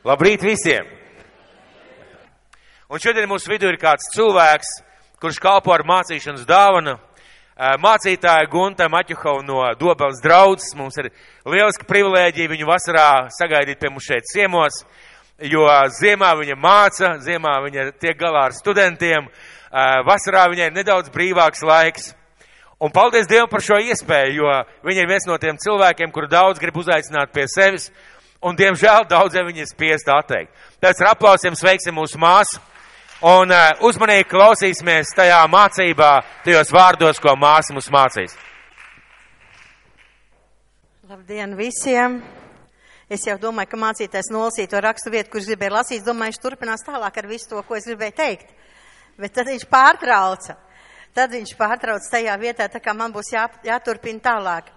Labrīt visiem! Un šodien mūsu vidū ir kāds cilvēks, kurš kalpo ar mācīšanas dāvanu. Mācītāja Gunta Maķuhova no Dobeles draudzes. Mums ir lieliska privilēģija viņu vasarā sagaidīt pie mums šeit ciemos, jo ziemā viņa māca, ziemā viņa tiek galā ar studentiem, vasarā viņai ir nedaudz brīvāks laiks. Un paldies Dievam par šo iespēju, jo viņa ir viens no tiem cilvēkiem, kuru daudz grib uzaicināt pie sevis, un diemžēl daudziem viņa ir spiest atteikt. Tāpēc ar aplausiem sveiksim mūsu māsu un uzmanīgi klausīsimies tajā mācībā, tajos vārdos, ko māsa mums mācīs. Labdien visiem! Es jau domāju, ka mācītājs nolasīja to rakstu vietu, kurš gribēja lasīt, domāju, viņš turpinās tālāk ar visu to, ko es gribēju teikt. Bet tad viņš pārtrauca. Tad viņš pārtrauc tajā vietā, tā kā man būs jāturpina tālāk.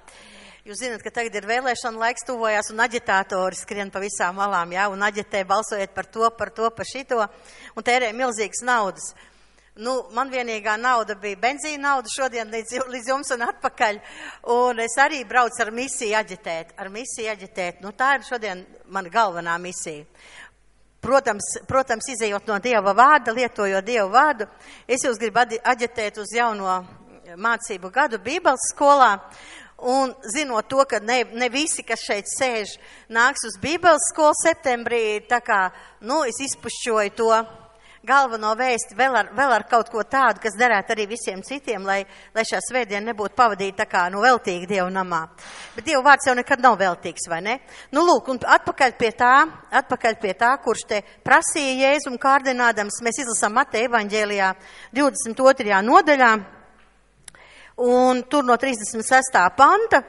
Jūs zināt, ka tagad ir vēlēšana laiks tuvojās un aģitātori skrien pa visām malām, jā, un aģitē balsojiet par to, par šito, un tērē milzīgas naudas. Nu, man vienīgā nauda bija benzīna nauda šodien līdz jums un atpakaļ, un es arī braucu ar misiju aģitēt. Nu, tā ir šodien mana galvenā misija. Protams, izējot no Dieva vārda, lietojot Dieva vārdu, es jūs gribu aģitēt uz jauno mācību gadu Bībeles skolā, un zinot to, ka ne visi, kas šeit sēž, nāks uz Bībeles skolu septembrī, tā kā, es izpušķoju to galveno vēsti vēl ar kaut ko tādu, kas derētu arī visiem citiem, lai šā svētdiena nebūtu pavadīta tā kā, veltīgi Dievu namā. Bet Dievu vārds jau nekad nav veltīgs, vai ne? Lūk, un atpakaļ pie tā, kurš te prasīja Jēzum kārdinādams, mēs izlasām Mateja evaņģēlijā 22. nodaļā, un tur no 36. panta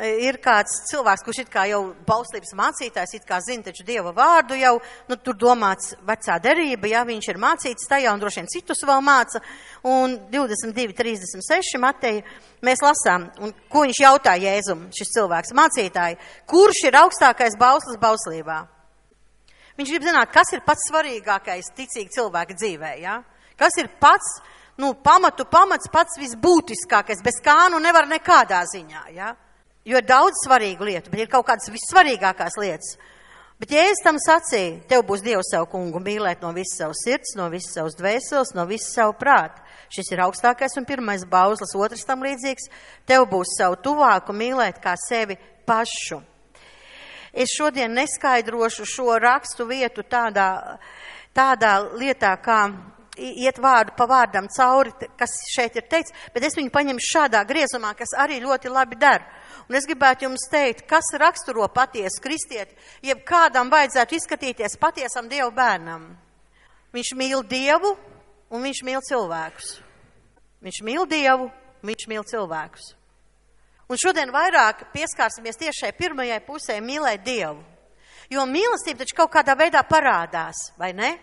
ir kāds cilvēks, kurš it kā jau bauslības mācītājs, it kā zina taču Dieva vārdu jau, tur domāts vecā derība, ja viņš ir mācīts tajā un droši vien citus vēl māca, un 22.36 Mateja mēs lasām, un ko viņš jautā Jēzum, šis cilvēks mācītāji, kurš ir augstākais bauslis bauslībā? Viņš grib zināt, kas ir pats svarīgākais ticīgi cilvēka dzīvē, ja? Kas ir pats, pamats, pats visbūtiskākais, bez kā nevar nekādā ziņā, ja? Jo ir daudz svarīgu lietu, bet ir kaut kādas vissvarīgākās lietas. Bet Jēzus tam sacīja, tev būs Dievu savu kungu mīlēt no visas savas sirds, no visas savas dvēseles, no visas savu prātu. Šis ir augstākais un pirmais bauslis, otrs tam līdzīgs. Tev būs savu tuvāku mīlēt kā sevi pašu. Es šodien neskaidrošu šo rakstu vietu tādā lietā, kā iet vārdu pa vārdam cauri, kas šeit ir teikts, bet es viņu paņemšu šādā griezumā, kas arī ļoti labi der. Un es gribētu jums teikt, kas raksturo patiesu kristieti, jeb kādam vajadzētu izskatīties patiesam Dievu bērnam. Viņš mīl Dievu un viņš mīl cilvēkus. Viņš mīl Dievu, viņš mīl cilvēkus. Un šodien vairāk pieskārsimies tieši šai pirmajai pusē mīlēt Dievu. Jo mīlestība taču kaut kādā veidā parādās, vai ne?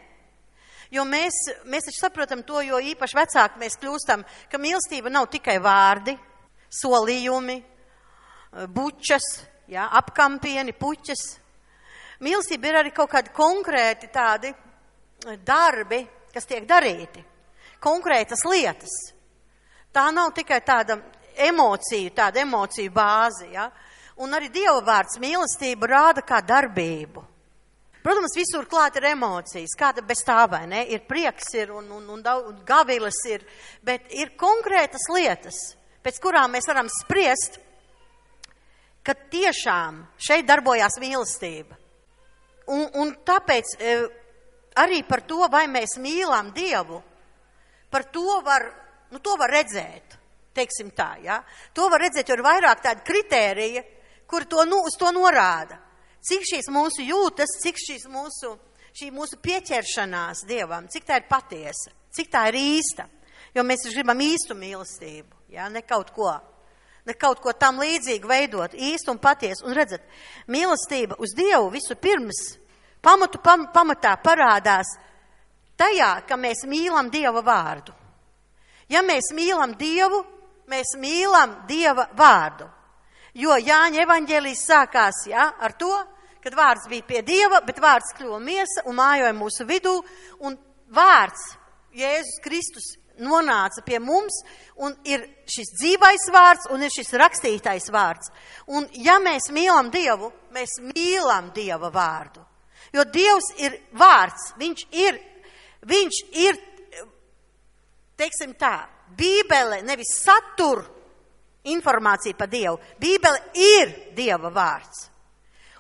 Jo mēs taču saprotam to, jo īpaši vecāki mēs kļūstam, ka mīlestība nav tikai vārdi, solījumi, bučas, apkampieni, puķas. Mīlestība ir arī kaut kādi konkrēti tādi darbi, kas tiek darīti, konkrētas lietas. Tā nav tikai tāda emociju bāzi, ja? Un arī Dieva vārds mīlestība rāda kā darbību. Protams, visur klāt ir emocijas, kāda bez tā, vai ne? Ir prieks, un gaviles ir, bet ir konkrētas lietas, pēc kurām mēs varam spriest, ka tiešām šeit darbojās mīlestība. Un tāpēc arī par to, vai mēs mīlam Dievu, par to var redzēt, teiksim tā, ja? To var redzēt, jo ir vairāk tādi kritērija, kuri uz to norāda. Cik šīs mūsu jūtas, cik šī mūsu pieķeršanās Dievam, cik tā ir patiesa, cik tā ir īsta. Jo mēs gribam īstu mīlestību, ja? Ne kaut ko tam līdzīgu veidot, īstu un patiesu. Un redzat, mīlestība uz Dievu visu pirms pamatā parādās tajā, ka mēs mīlam Dieva vārdu. Ja mēs mīlam Dievu, mēs mīlam Dieva vārdu. Jo Jāņa evaņģēlijs sākās ar to, kad vārds bija pie Dieva, bet vārds kļuva miesa un mājoja mūsu vidū, un vārds, Jēzus Kristus, nonāca pie mums, un ir šis dzīvais vārds, un ir šis rakstītais vārds. Un ja mēs mīlam Dievu, mēs mīlam Dieva vārdu. Jo Dievs ir vārds, viņš ir, teiksim tā, Bībele nevis satur informāciju par Dievu. Bībele ir Dieva vārds.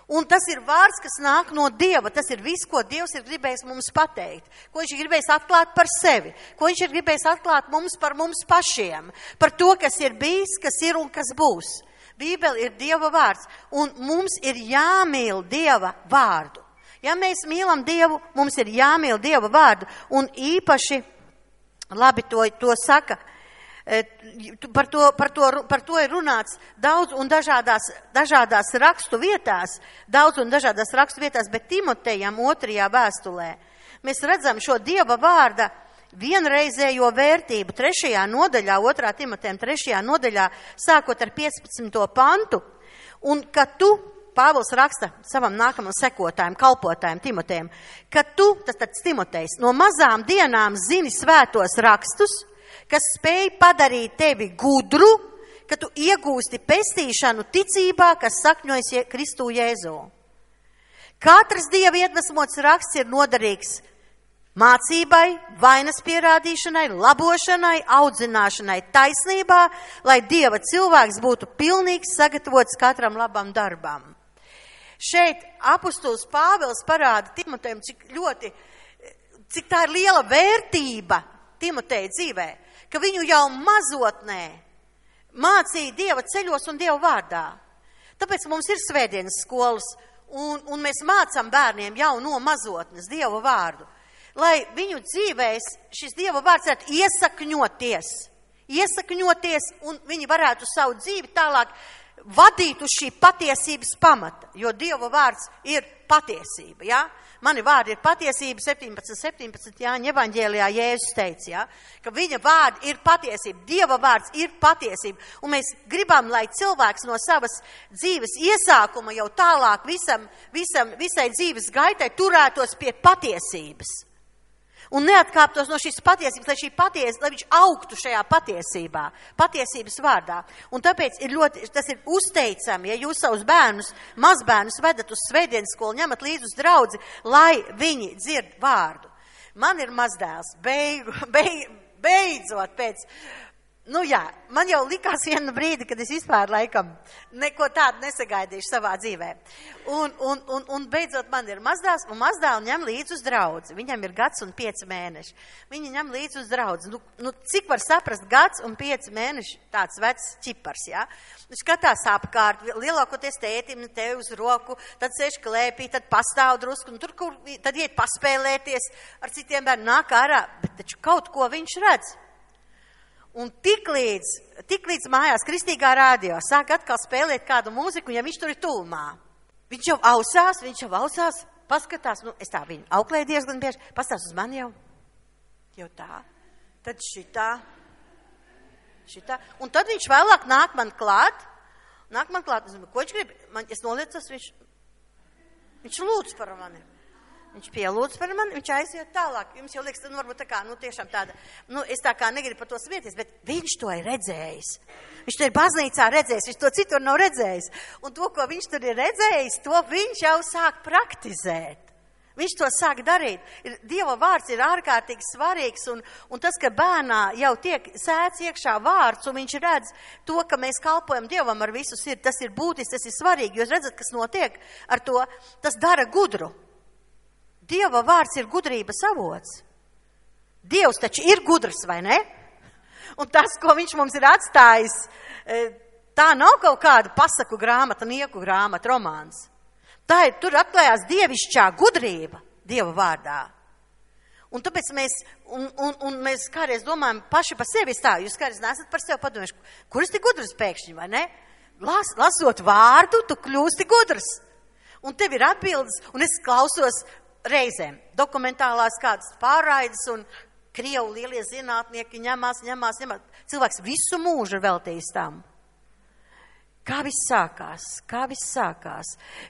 Un tas ir vārds, kas nāk no Dieva. Tas ir viss, ko Dievs ir gribējis mums pateikt. Ko viņš ir gribējis atklāt par sevi. Ko viņš ir gribējis atklāt mums par mums pašiem. Par to, kas ir bijis, kas ir un kas būs. Bībele ir Dieva vārds. Un mums ir jāmīl Dieva vārdu. Ja mēs mīlam Dievu, mums ir jāmīl Dieva vārdu. Un īpaši, labi to saka, par to ir runāts daudz un dažādās rakstu vietās, bet Timotejam 2. vēstulē mēs redzam šo Dieva vārda vienreizējo vērtību 3. nodaļā, 2. Timotejam 3. nodaļā, sākot ar 15. pantu, un ka tu, Pāvils raksta savam nākamam sekotājam, kalpotājam Timotejam, ka tu, tas Timotejs, no mazām dienām zini svētos rakstus, kas spēj padarīt tevi gudru, ka tu iegūsti pestīšanu ticībā, kas sakņojas Kristu Jēzu. Katrs Dieva iedvesmots raksts ir noderīgs mācībai, vainas pierādīšanai, labošanai, audzināšanai taisnībā, lai Dieva cilvēks būtu pilnīgs, sagatavots katram labam darbam. Šeit apustulis Pāvils parāda Timotejam, cik tā ir liela vērtība Timoteja dzīvē, ka viņu jau mazotnē mācīja Dieva ceļos un Dieva vārdā. Tāpēc mums ir svētdienas skolas, un mēs mācām bērniem jau no mazotnes Dieva vārdu, lai viņu dzīvēs šis Dieva vārds varētu iesakņoties, un viņi varētu savu dzīvi tālāk vadīt uz šī patiesības pamata, jo Dieva vārds ir patiesība, ja? Mani vārdi ir patiesība, 17 Jāņa evaņģēlijā Jēzus teica, ja? Ka viņa vārdi ir patiesība, Dieva vārds ir patiesība, un mēs gribam, lai cilvēks no savas dzīves iesākuma jau tālāk visai dzīves gaitai turētos pie patiesības. Un neatkāptos no šīs patiesības, lai viņš augtu šajā patiesības vārdā. Un tāpēc tas ir uzteicami, ja jūs savus bērnus, mazbērnus vedat uz svētdienas skolu, ņemat līdzi uz draudzi, lai viņi dzird vārdu. Man ir mazdēls, beidzot pēc, man jau likās vienu brīdi, kad es vispār laikam neko tādu nesagaidīšu savā dzīvē. Un beidzot man ir mazdēls, un mazdēlu ņem līdzi uz draudzi. Viņam ir 1 un 5 mēneši. Viņi ņem līdzi uz draudzi. Cik var saprast 1 un 5 mēneši tāds vecs ķipars, ja? Skatās apkārt, lielākoties tētim tevi uz roku, tad sēž klēpī, tad pastāv drusku, un tad iet paspēlēties ar citiem bērniem, nāk ārā, bet taču kaut ko viņš redz. Un tiklīdz mājās kristīgā rādio sāk atkal spēlēt kādu mūziku, ja viņš tur ir tuvumā. Viņš jau ausās, paskatās, es tā viņu auklēju diezgan bieži, pastāst uz mani jau tā, tad šitā. Un tad viņš vēlāk nāk man klāt, es domāju, ko viņš grib? Es noliecos, viņš lūdz par mani. Viņš pielūdz par mani, viņš aiziet tālāk. Jums jau liekas, varbūt tā kā, tiešām tāda, es tā kā negribu par to smieties, bet viņš to ir redzējis. Viņš to ir baznīcā redzējis, viņš to citur nav redzējis. Un to, ko viņš tur ir redzējis, to viņš jau sāk praktizēt. Viņš to sāk darīt. Dieva vārds ir ārkārtīgi svarīgs, un tas, ka bērnā jau tiek sēts iekšā vārds, un viņš redz to, ka mēs kalpojam Dievam ar visu sirdi, tas ir būtiski, tas ir svarīgi. Jūs redzat, kas notiek ar to, tas dara gudru. Dieva vārds ir gudrības avots. Dievs taču ir gudrs, vai ne? Un tas, ko viņš mums ir atstājis, tā nav kaut kāda pasaku grāmata, nieku grāmata, romāns. Tur atklājās dievišķā gudrība Dieva vārdā. Un tāpēc mēs kādreiz domājam paši par sevi tā, jūs kādreiz nesat par sevi padomājuši, kur es tik gudrs pēkšņi, vai ne? Lasot vārdu, tu kļūsti gudrs. Un tev ir atbildes, un es klausos reizēm dokumentālās kādas pārraides, un Krievu lielie zinātnieki ņemās. Cilvēks visu mūžu veltījis tam. Kā viss sākās,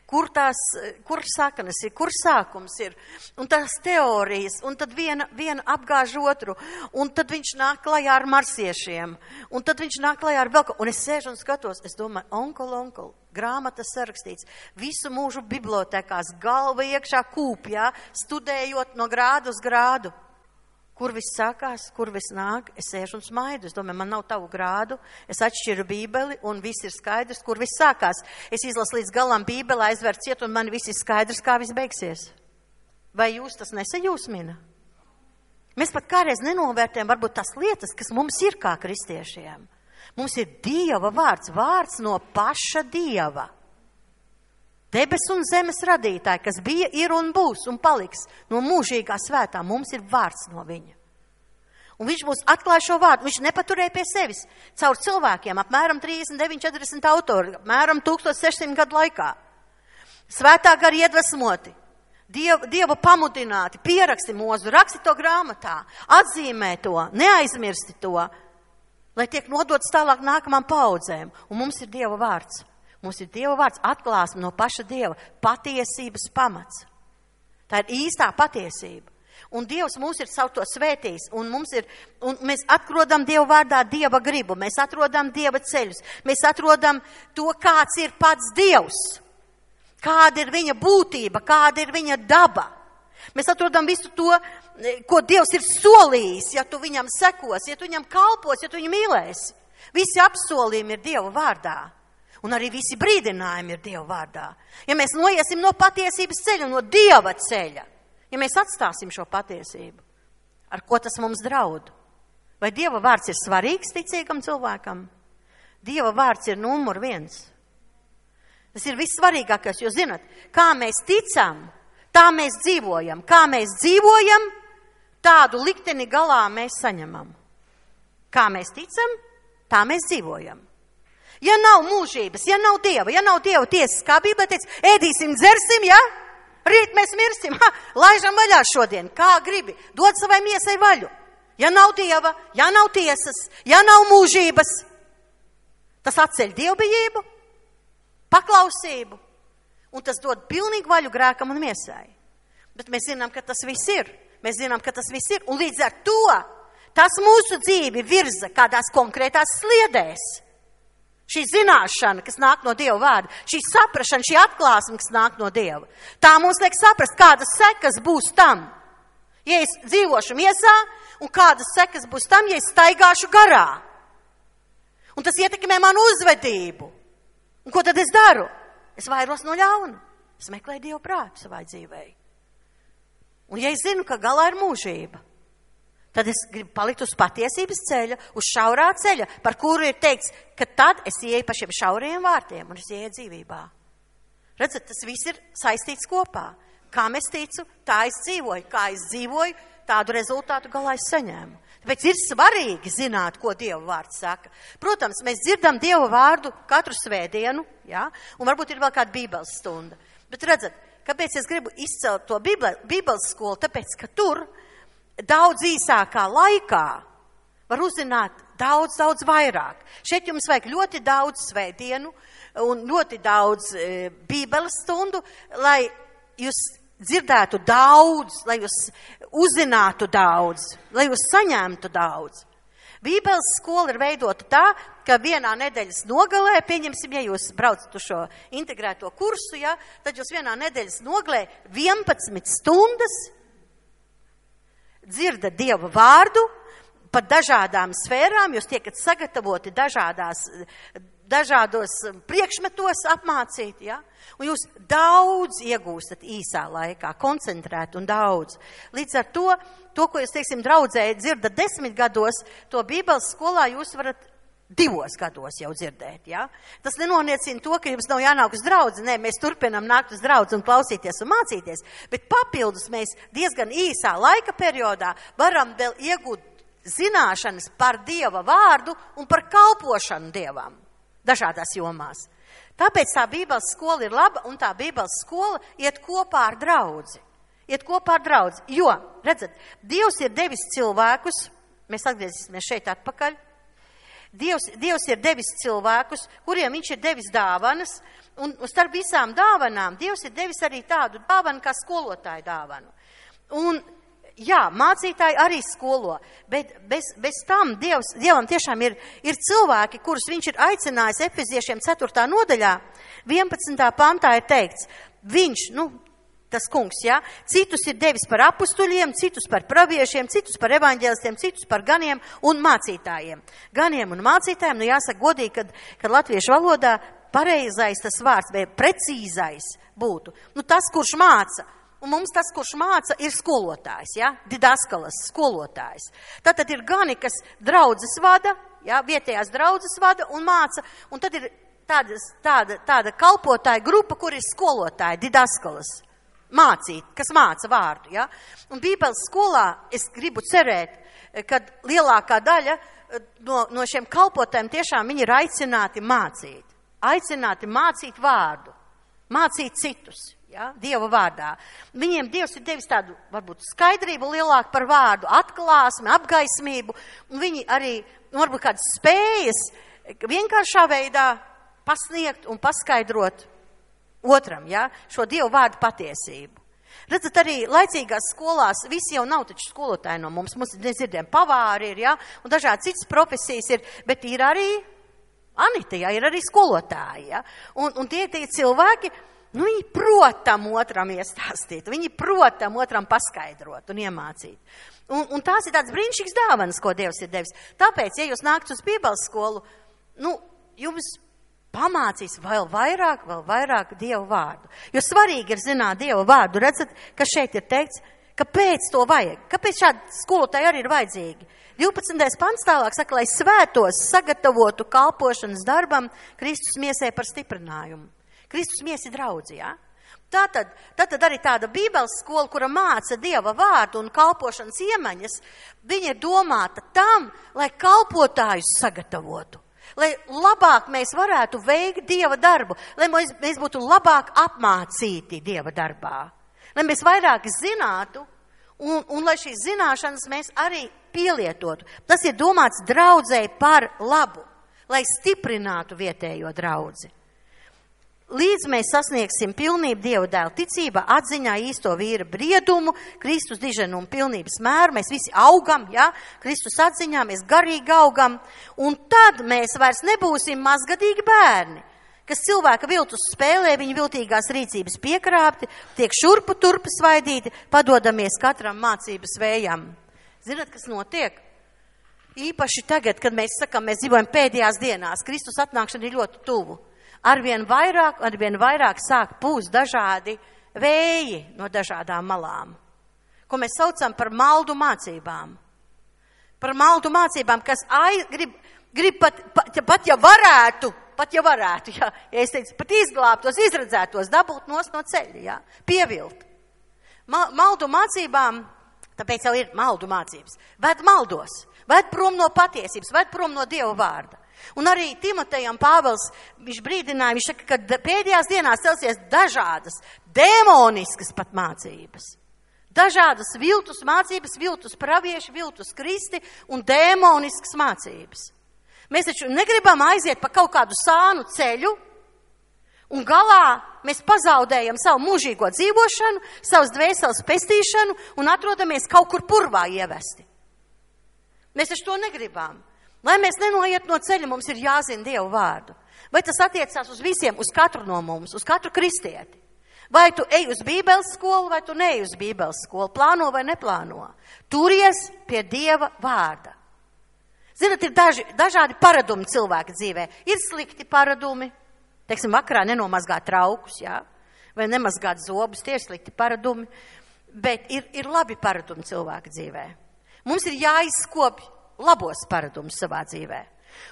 kur saknes ir, kur sākums ir, un tās teorijas, un tad viena apgāž otru, un tad viņš nāk klajā ar marsiešiem, un tad viņš nāk klajā ar vēl ko, un es sēžu un skatos, es domāju, onkol, grāmatas sarakstīts, visu mūžu bibliotekās, galva iekšā kūpjā, studējot no grādu uz grādu. Kur viss sākās, kur viss nāk, es sēžu un smaidu. Es domāju, man nav tavu grādu, es atšķiru bībeli un viss ir skaidrs, kur viss sākās. Es izlasu līdz galam bībeli, aizver ciet un man viss ir skaidrs, kā viss beigsies. Vai jūs tas nesajūsmina? Mēs pat kādreiz nenovērtējam varbūt tās lietas, kas mums ir kā kristiešiem. Mums ir Dieva vārds no paša Dieva. Debes un zemes radītāji, kas bija, ir un būs un paliks no mūžīgā svētā, mums ir vārds no viņa. Un viņš mums atklāja šo vārdu, viņš nepaturēja pie sevis caur cilvēkiem, apmēram 39-40 autori, apmēram 1600 gadu laikā. Svētā gara iedvesmoti, Dieva pamudināti, pieraksti mūzu, raksti to grāmatā, atzīmē to, neaizmirsti to, lai tiek nodots tālāk nākamām paudzēm. Un mums ir Dieva vārds. Mums ir Dieva vārds, atklāsme no paša Dieva, patiesības pamats. Tā ir īstā patiesība. Un Dievs mūs ir savu to svētījis, un mēs atrodam Dieva vārdā Dieva gribu, mēs atrodam Dieva ceļus, mēs atrodam to, kāds ir pats Dievs, kāda ir viņa būtība, kāda ir viņa daba. Mēs atrodam visu to, ko Dievs ir solījis, ja tu viņam sekos, ja tu viņam kalpos, ja tu viņu mīlēsi. Visi apsolījumi ir Dieva vārdā. Un arī visi brīdinājumi ir Dieva vārdā. Ja mēs noiesim no patiesības ceļa, no Dieva ceļa, ja mēs atstāsim šo patiesību, ar ko tas mums draud? Vai Dieva vārds ir svarīgs ticīgam cilvēkam? Dieva vārds ir numur 1. Tas ir vissvarīgākais, jo zinat, kā mēs ticam, tā mēs dzīvojam. Kā mēs dzīvojam, tādu likteni galā mēs saņemam. Kā mēs ticam, tā mēs dzīvojam. Ja nav mūžības, ja nav Dieva tiesas, kā Bībele teica, ēdīsim, dzersim, ja? Rīt mēs mirsim, laižam vaļā šodien, kā gribi, dod savai miesai vaļu. Ja nav Dieva, ja nav tiesas, ja nav mūžības, tas atceļ dievbijību, paklausību, un tas dod pilnīgu vaļu grēkam un miesai. Bet mēs zinām, ka tas viss ir. Un līdz ar to tas mūsu dzīvi virza kādās konkrētās sliedēs. Šī zināšana, kas nāk no Dieva vārda, šī saprašana, šī atklāsme, kas nāk no Dieva, tā mums liek saprast, kādas sekas būs tam, ja es dzīvošu miesā, un kādas sekas būs tam, ja es staigāšu garā. Un tas ietekmē manu uzvedību. Un ko tad es daru? Es vairos no ļauna. Es meklēju Dieva prātu savai dzīvei. Un ja es zinu, ka galā ir mūžība, tad es gribu palikt uz patiesības ceļa, uz šaurā ceļa, par kuru ir teikts, ka tad es ieeju pa šiem šauriem vārtiem un es ieeju dzīvībā. Redzat, tas viss ir saistīts kopā. Kā es ticu, tā es dzīvoju. Kā es dzīvoju, tādu rezultātu galā es saņēmu. Tāpēc ir svarīgi zināt, ko Dieva vārds saka. Protams, mēs dzirdam Dieva vārdu katru svētdienu, ja? Un varbūt ir vēl kāda bībeles stunda. Bet redzat, kāpēc es gribu izcelt to bībeles skolu? Tāpēc, ka tur daudz īsākā laikā var uzzināt daudz vairāk. Šeit jums vajag ļoti daudz svētdienu un ļoti daudz bībeles stundu, lai jūs dzirdētu daudz, lai jūs uzzinātu daudz, lai jūs saņemtu daudz. Bībeles skola ir veidota tā, ka vienā nedēļas nogalē, pieņemsim, ja jūs braucat uz šo integrēto kursu, ja, tad jūs vienā nedēļas nogalē 11 stundas dzirdat Dieva vārdu par dažādām sfērām, jūs tiekat sagatavoti dažādos priekšmetos apmācīt, ja? Un jūs daudz iegūstat īsā laikā, koncentrēt un daudz. Līdz ar to, ko jūs, teiksim, draudzē dzirdat 10 gados, to bībeles skolā jūs varat 2 gados jau dzirdēt, ja? Tas nenoniecina to, ka jums nav jānāk uz draudzi. Nē, mēs turpinām nākt uz draudzi un klausīties un mācīties, bet papildus mēs diezgan īsā laika periodā varam vēl iegūt zināšanas par Dieva vārdu un par kalpošanu Dievam dažādās jomās. Tāpēc tā bībeles skola ir laba, un tā bībeles skola iet kopā ar draudzi. Jo, redzat, Dievs ir devis cilvēkus, mēs atgriezīsimies šeit atpakaļ, Dievs ir devis cilvēkus, kuriem viņš ir devis dāvanas, un starp visām dāvanām Dievs ir devis arī tādu dāvanu kā skolotāju dāvanu. Un, jā, mācītāji arī skolo, bet bez tam Dievam tiešām ir cilvēki, kurus viņš ir aicinājis Efeziešiem 4. nodaļā, 11. pantā ir teikts, viņš, tas kungs, jā, citus ir devis par apustuļiem, citus par praviešiem, citus par evaņģēlistiem, citus par ganiem un mācītājiem. Ganiem un mācītājiem, jāsaka godīgi, kad latviešu valodā pareizais tas vārds, vai precīzais būtu. Tas, kurš māca. Un mums tas, kurš māca, ir skolotājs, ja? Didaskalas skolotājs. Tātad ir gani, kas draudzes vada, ja? Vietējās draudzes vada un māca, un tad ir tāda kalpotāja grupa, kur ir skolotāji, didaskalas, mācīt, kas māca vārdu, ja? Un Bībeles skolā es gribu cerēt, ka lielākā daļa no šiem kalpotājiem tiešām viņi ir aicināti mācīt vārdu, mācīt citus. Ja, Dieva vārdā. Viņiem Dievs ir devis tādu, varbūt, skaidrību lielāku par vārdu, atklāsmi, apgaismību, un viņi arī, varbūt, kādas spējas vienkāršā veidā pasniegt un paskaidrot otram, ja, šo Dieva vārdu patiesību. Redzat, arī laicīgās skolās visi jau nav taču skolotāji no mums dzirdiem, pavāri ir, ja, un dažādi citas profesijas ir, bet ir arī Anita, ja, ir arī skolotāji, ja, un tie cilvēki, viņi protam otram iestāstīt, viņi protam otram paskaidrot un iemācīt. Un tās ir tāds brīnišķīgs dāvanas, ko Dievs ir devis. Tāpēc, ja jūs nākat uz Bībeles skolu, jums pamācīs vēl vairāk Dieva vārdu. Jo svarīgi ir zināt Dieva vārdu. Redzat, ka šeit ir teikts, kāpēc to vajag, kāpēc šādi skolotāji arī ir vajadzīgi. 12. pants tālāk saka, lai svētos sagatavotu kalpošanas darbam Kristus miesē par stiprinājumu. Kristus miesa ir draudzi, ja? Tātad arī tāda Bībeles skola, kura māca Dieva vārdu un kalpošanas iemaņas, viņa ir domāta tam, lai kalpotājus sagatavotu, lai labāk mēs varētu veikt Dieva darbu, lai mēs būtu labāk apmācīti Dieva darbā, lai mēs vairāk zinātu un lai šīs zināšanas mēs arī pielietotu. Tas ir domāts draudzei par labu, lai stiprinātu vietējo draudzi. Līdz mēs sasniegsim pilnību Dieva dēla ticībā, atziņā īsto vīra briedumu, Kristus diženumu pilnības mēru, mēs visi augam, ja? Kristus atziņā, mēs garīgi augam, un tad mēs vairs nebūsim mazgadīgi bērni, kas cilvēka viltus spēlē, viņa viltīgās rīcības piekrāpti, tiek šurpu turpu svaidīti, padodamies katram mācības vējam. Zināt, kas notiek? Īpaši tagad, kad mēs sakam, mēs dzīvojam pēdējās dienās, Kristus atnākšana ir ļoti tuvu. Arvien vairāk sāk pūst dažādi vēji no dažādām malām, ko mēs saucam par maldu mācībām. Par maldu mācībām, kas grib pat ja varētu, ja es teicu, pat izglābtos, izredzētos, dabūt nost no ceļa, ja, pievilt. Maldu mācībām, tāpēc jau ir maldu mācības, ved maldos, ved prom no patiesības, ved prom no Dieva vārda. Un arī Timotejam Pāvils, viņš brīdināja, viņš saka, ka pēdējās dienās celsies dažādas, demoniskas pat mācības. Dažādas viltus mācības, viltus pravieši, viltus kristi un demoniskas mācības. Mēs taču negribam aiziet pa kaut kādu sānu ceļu, un galā mēs pazaudējam savu mūžīgo dzīvošanu, savas dvēseles pestīšanu un atrodamies kaut kur purvā ievesti. Mēs taču to negribam. Lai mēs nenoiet no ceļa, mums ir jāzina Dieva vārdu. Vai tas attiecās uz visiem, uz katru no mums, uz katru kristieti? Vai tu ej uz Bībeles skolu, vai tu neej uz Bībeles skolu, plāno vai neplāno? Turies pie Dieva vārda. Zinat, ir dažādi paradumi cilvēka dzīvē. Ir slikti paradumi, teiksim, vakarā nenomazgāt traukus, jā? Vai nemazgāt zobus, tie ir slikti paradumi, bet ir labi paradumi cilvēka dzīvē. Mums ir jāizkopj labos paradumus savā dzīvē.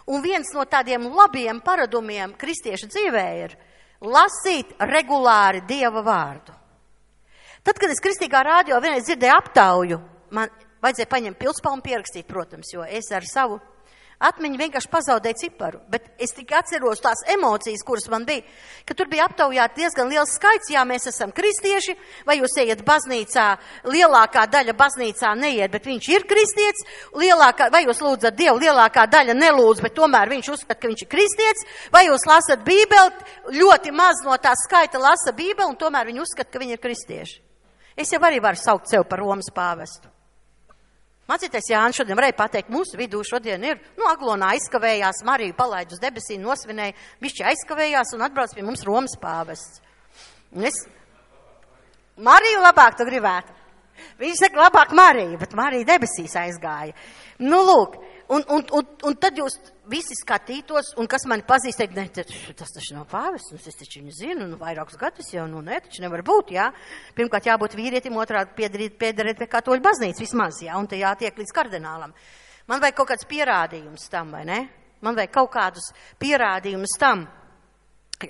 Un viens no tādiem labiem paradumiem kristiešu dzīvē ir lasīt regulāri Dieva vārdu. Tad, kad es kristīgā rādio vienreiz dzirdēju aptauju, man vajadzēja paņemt pilspalmu pierakstīt, protams, jo es ar savu Atmiņa vienkārši pazaudēja ciparu, bet es tikai atceros tās emocijas, kuras man bija, ka tur bija aptaujāti diezgan liels skaits, jā, mēs esam kristieši, vai jūs ejat baznīcā, lielākā daļa baznīcā neiet, bet viņš ir kristietis, vai jūs lūdzat Dievu, lielākā daļa nelūdz, bet tomēr viņš uzskata, ka viņš ir kristietis, vai jūs lasat Bībeli, ļoti maz no tā skaita lasa Bībeli, un tomēr viņi uzskata, ka viņi ir kristieši. Es jau arī varu saukt sev par Romas pāvestu. Mācītais Jānis šodien varēja pateikt, mūsu vidū šodien ir, Aglonā aizkavējās, Mariju palaid uz debesīm, nosvinēja, bišķi aizkavējās un atbrauc pie mums Romas pāvests. Mariju labāk tu gribētu. Viņš saka, labāk Mariju, bet Marija debesīs aizgāja. Lūk, un tad jūs visi skatītos, un kas mani pazīst, teikt, ne, tas taču nav pāvests, es taču viņu zinu, vairākus gadus jau, ne, taču nevar būt, jā. Pirmkārt jābūt vīrietim, otrādi piederēt pie katoļu baznīcas vismaz, jā, un te jātiek līdz kardinālam. Man vajag kaut kāds pierādījums tam, vai ne? Man vajag kaut kādus pierādījumus tam.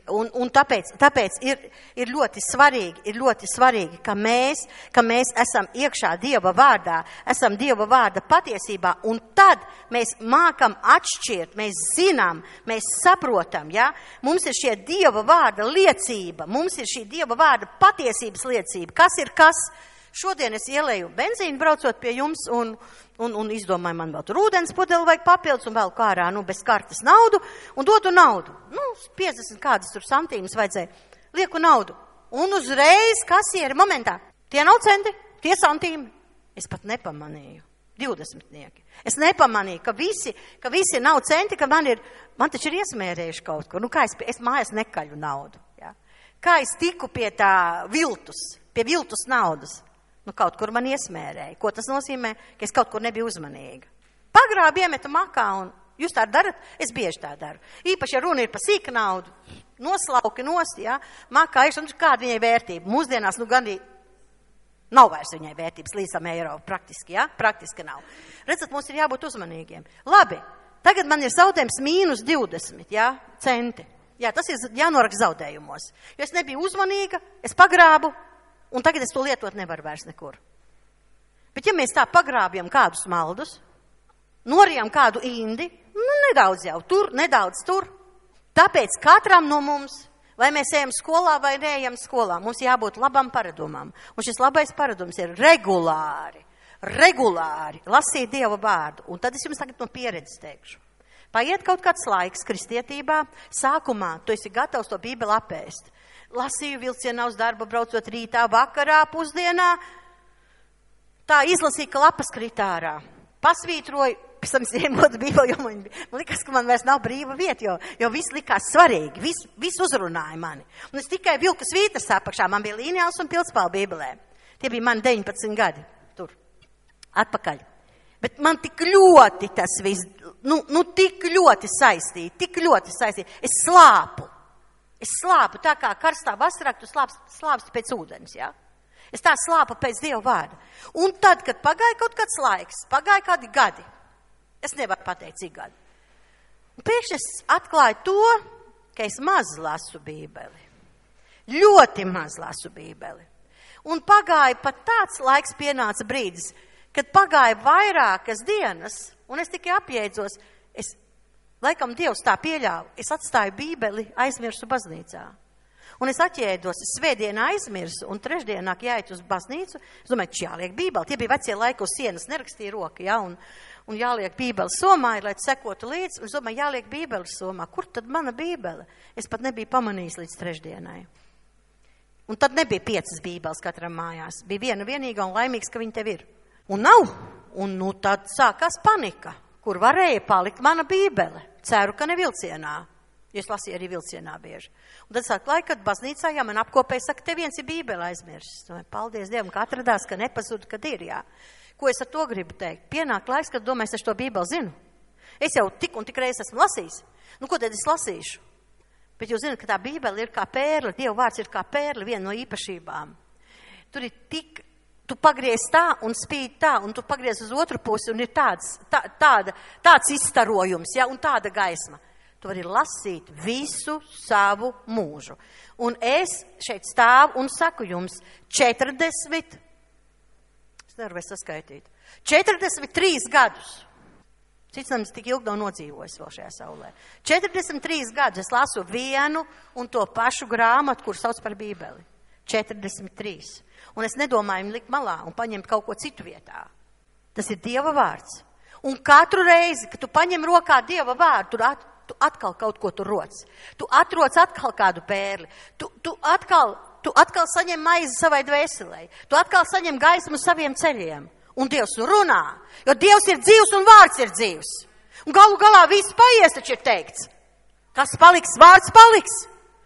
Un tāpēc ir ļoti svarīgi, ka mēs esam iekšā Dieva vārdā, esam Dieva vārda patiesībā, un tad mēs mākam atšķirt, mēs zinām, mēs saprotam, ja? Mums ir šie Dieva vārda liecība, mums ir šī Dieva vārda patiesības liecība. Kas ir kas? Šodien es ielēju benzīnu braucot pie jums un izdomāju, man vēl tur ūdens pudeli vajag papildus un vēl kārā, bez kartes naudu un dodu naudu. 50 kādas tur santīmas vajadzēja. Lieku naudu. Un uzreiz kasieri momentā. Tie nav centi, tie santīmi. Es pat nepamanīju. 20. Es nepamanīju, ka visi nav centi, ka man taču ir iesmērējuši kaut ko. Kā es mājās nekaļu naudu. Ja? Kā es tiku pie tā pie viltus naudas. Kaut kur man iesmērēja. Ko tas nozīmē? Ka es kaut kur nebiju uzmanīga. Pagrābi iemetu makā un jūs tā darat? Es bieži tā daru. Īpaši, ja runa ir par sīka naudu, noslauki nost, ja? Makā ir, un kāda viņai vērtība? Mūsdienās, gandī nav vairs viņai vērtības līdz eiro praktiski, ja? Praktiski nav. Redzat, mums ir jābūt uzmanīgiem. Labi, tagad man ir zaudējums -20, ja? Centi. Jā, tas ir jānoraksta zaudējumos. Jo es nebiju uzmanīga, es pagrābu, un tagad es to lietot nevaru vairs nekur. Bet ja mēs tā pagrābjam kādus maldus, norijam kādu indi, nedaudz jau tur, nedaudz tur. Tāpēc katram no mums, vai mēs ejam skolā vai neejam skolā, mums jābūt labam paradumam. Un šis labais paradums ir regulāri lasīt Dieva vārdu. Un tad es jums tagad no pieredzes teikšu. Paiet kaut kāds laiks kristietībā, sākumā tu esi gatavs to Bībeli apēst. Lasīju vilcienā uz darbu, braucot rītā, vakarā, pusdienā. Tā izlasīja, ka lapas kritārā. Pasvītroju, pēc tam es iemotu Bībeli, jo man likās, ka man vairs nav brīva vieta, jo viss likās svarīgi, viss uzrunāja mani. Un es tikai vilku svītas apakšā, man bija līnijāls un pildspālu Bībelē. Tie bija mani 19 gadi tur, atpakaļ. Bet man tik ļoti tas viss, tik ļoti saistīti. Es slāpu tā kā karstā vasarā, tu slāpsti pēc ūdens, ja? Es tā slāpu pēc Dieva vārda. Un tad, kad pagāja kaut kāds laiks, pagāja kādi gadi, es nevaru pateikt, cik gadi. Un pēkšņi es atklāju to, ka es maz lasu Bībeli. Ļoti maz lasu Bībeli. Un pagāja pat tāds laiks, pienāca brīdis, kad pagāja vairākas dienas, un es tikai apjēdzos, laikam Dievs tā pieļāva, es atstāju Bībeli, aizmirsu baznīcā. Un es atjēdos, es svētdienā aizmirsu, un trešdienā jāiet uz baznīcu, es domāju, jāliek Bībeli. Tie bija vecie laiki, uz sienas nerakstīja roka, ja, un jāliek Bībeli somā, lai sekotu līdzi, un es domāju, jāliek Bībeli somā. Kur tad mana Bībele? Es pat nebiju pamanījis līdz trešdienai. Un tad nebija 5 Bībeles katram mājās. Bija viena vienīga un laimīgs, ka viņa tev ir. Un nav. Un tad sākās panika, kur varēja palikt mana Bībele. Ceru, ka ne vilcienā. Es lasīju arī vilcienā bieži. Un tad sāk laika, kad baznīcā, jā, man apkopēja, saka, te viens ir Bībele aizmirsis. Paldies Dievam, ka atradās, ka nepazuda, kad ir, jā. Ko es ar to gribu teikt? Pienāk laiks, kad domāju, es to Bībeli zinu. Es jau tik un tik reiz esmu lasījis. Ko tad es lasīšu? Bet jūs zināt, ka tā Bībele ir kā pērle, Dieva vārds ir kā pērle, viena no īpašībām. Tur ir tik, tu pagriez tā un spīd tā, un tu pagriez uz otru pusi, un ir tāds izstarojums, jā, un tāda gaisma. Tu vari lasīt visu savu mūžu. Un es šeit stāvu un saku jums 40, es nevaru vairs saskaitīt, 43 gadus. Cits nemaz tik ilgi nav nodzīvojis vēl šajā saulē. 43 gadus es lasu vienu un to pašu grāmatu, kur sauc par Bībeli. 43. Un es nedomāju likt malā un paņemt kaut ko citu vietā. Tas ir Dieva vārds. Un katru reizi, kad tu paņem rokā Dieva vārdu, tu atkal kaut ko tur roc. Tu atroc atkal kādu pērli. Tu atkal saņem maizi savai dvēselei. Tu atkal saņem gaismu saviem ceļiem. Un Dievs runā, jo Dievs ir dzīvs un vārds ir dzīvs. Un galu galā viss paies, taču ir teikts. Kas paliks, vārds paliks.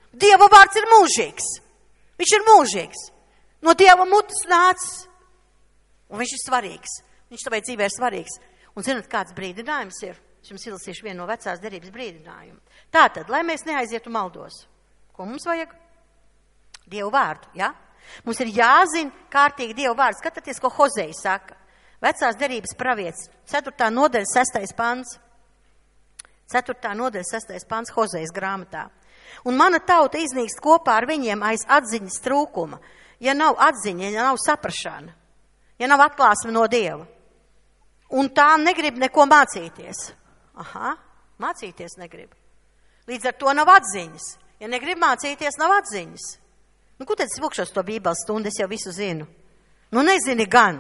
Dieva vārds ir mūžīgs. Viņš ir mūžīgs. No Dieva mutes nācis. Un viņš ir svarīgs. Viņš tavai dzīvē ir svarīgs. Un zināt, kāds brīdinājums ir? Es jums izlasīšu vienu no vecās derības brīdinājumu. Tātad, lai mēs neaizietu maldos. Ko mums vajag? Dievu vārdu, ja? Mums ir jāzina kārtīgi Dievu vārdu. Skatieties, ko Hozei saka. Vecās derības pravietis, 4. nodaļa, 6. pants. 4. nodaļa, 6. pants Hozejas grāmatā. Un mana tauta iznīkst kopā ar viņiem aiz atziņas trūkuma. Ja nav atziņa, ja nav saprašana, ja nav atklāsme no Dieva. Un tā negrib neko mācīties. Aha, mācīties negrib. Līdz ar to nav atziņas. Ja negrib mācīties, nav atziņas. Nu, ko tad es lūkšos to Bībeles stundu, es jau visu zinu. Nu, nezini gan.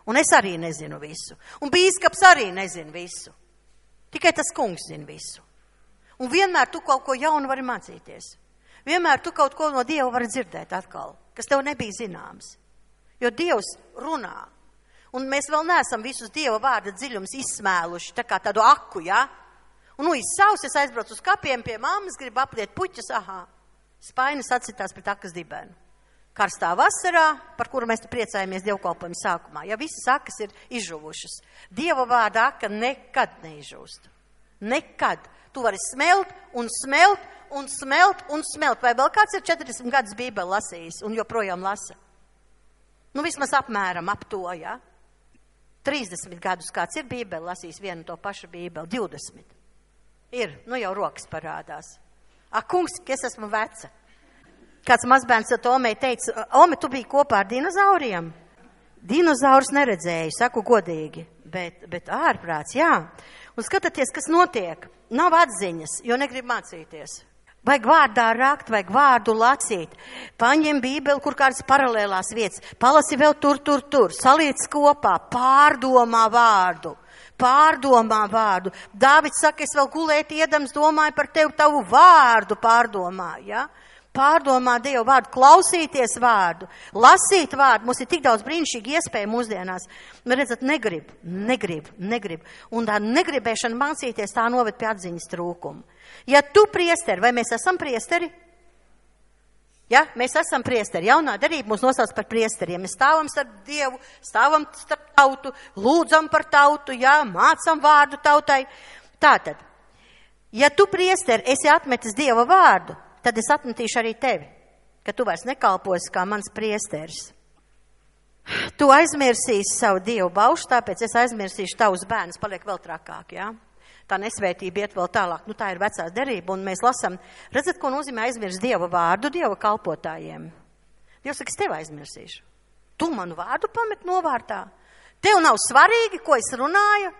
Un es arī nezinu visu. Un bīskaps arī nezina visu. Tikai tas kungs zina visu. Un vienmēr tu kaut ko jaunu vari mācīties. Vienmēr tu kaut ko no Dieva vari dzirdēt atkal, kas tev nebija zināms. Jo Dievs runā. Un mēs vēl neesam visus Dieva vārda dziļums izsmēluši, tā kā tādu aku, ja? Un izsaus, es aizbraucu uz kapiem pie mammas, gribu apliet puķas, spainis atsitās pret akas dibenu. Karstā vasarā, par kuru mēs priecājamies dievkalpojuma sākumā, ja visas akas ir izžuvušas. Dieva vārda aka nekad neizžūst. Nekad. Tu vari smelt un smelt un smelt un smelt. Vai vēl kāds ir 40 gadus Bībeli lasījis un joprojām lasa? Nu, vismaz apmēram ap to, ja? 30 gadus kāds ir Bībeli lasījis vienu to pašu Bībeli, 20. Ir, nu jau rokas parādās. Kungs, es esmu veca. Kāds mazbērns ar Omei teica, Ome, tu biji kopā ar dinozauriem? Dinozaurus neredzēju, saku godīgi, bet ārprāts, jā. Un skatieties, kas notiek. Nav atziņas, jo negrib mācīties. Vajag vārdā rakt, vajag vārdu lasīt. Paņem Bībeli, kur kādas paralēlās vietas. Palasi vēl tur. Saliec kopā, pārdomā vārdu. Pārdomā vārdu. Dāvids saka, es vēl gulēt iedams, domāju par tevi, tavu vārdu pārdomā, ja? Pārdomā Dievu vārdu, klausīties vārdu, lasīt vārdu. Mums ir tik daudz brīnišķīgi iespēju mūsdienās. Nu, redzat, negrib. Un tā negribēšana mācīties, tā noved pie atziņas trūkuma. Ja tu priesteri, vai mēs esam priesteri? Ja, mēs esam priesteri. Jaunā derība mūs nosauc par priesteriem. Mēs stāvam starp Dievu, stāvam starp tautu, lūdzam par tautu, ja, mācam vārdu tautai. Tātad, ja tu priesteri esi atmetis Dieva vārdu, tad es atmetīšu arī tevi, ka tu vairs nekalposi kā mans priesteris. Tu aizmirsīsi savu Dievu baušu, tāpēc es aizmirsīšu tavus bērnus, paliek vēl trakāk, jā? Tā nesvētība iet vēl tālāk. Nu, tā ir vecās derība, un mēs lasam, redzat, ko nozīmē aizmirst Dieva vārdu Dieva kalpotājiem. Dievs saka, es tevi aizmirsīšu. Tu manu vārdu pamet novārtā. Tev nav svarīgi, ko es runāju.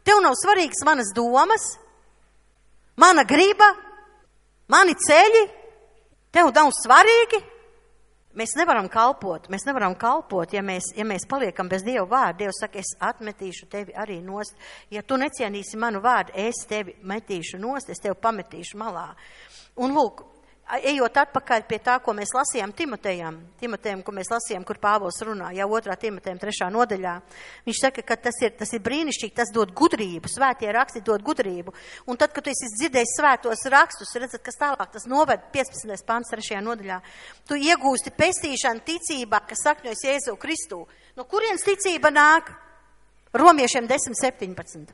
Tev nav svarīgas manas domas, mana griba, mani ceļi. Tev nav svarīgi. Mēs nevaram kalpot, ja mēs paliekam bez Dieva vārda. Dievs saka, es atmetīšu tevi arī nost. Ja tu necienīsi manu vārdu, es tevi metīšu nost, es tevi pametīšu malā. Un lūk, ejot atpakaļ pie tā, ko mēs lasījām Timotejam, ko mēs lasījām, kur Pāvils runā, jau 2. Timotejam 3. nodaļā. Viņš saka, ka tas ir brīnišķīgi, tas dod gudrību, svētie raksti dod gudrību. Un tad, kad tu esi dzirdējis svētos rakstus, redzat, kas tālāk tas noved 15. pants 3. nodaļā. Tu iegūsti pestīšanu ticībā, kas sakņojas Jēzu Kristu. No kurienes ticība nāk? Romiešiem 10:17.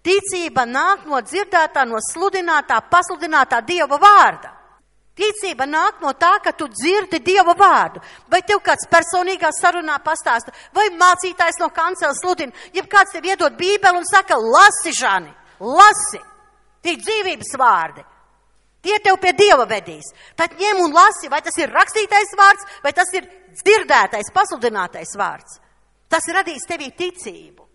Ticība nāk no dzirdētā, no sludinātā, pasludinātā Dieva vārda. Ticība nāk no tā, ka tu dzirdi Dieva vārdu. Vai tev kāds personīgā sarunā pastāsta, vai mācītājs no kanceles sludina, ja kāds tev iedod Bībeli un saka, lasi, Žani, lasi, tie dzīvības vārdi. Tie tev pie Dieva vedīs. Tad ņem un lasi, vai tas ir rakstītais vārds, vai tas ir dzirdētais, pasludinātais vārds. Tas radīs tevī ticību.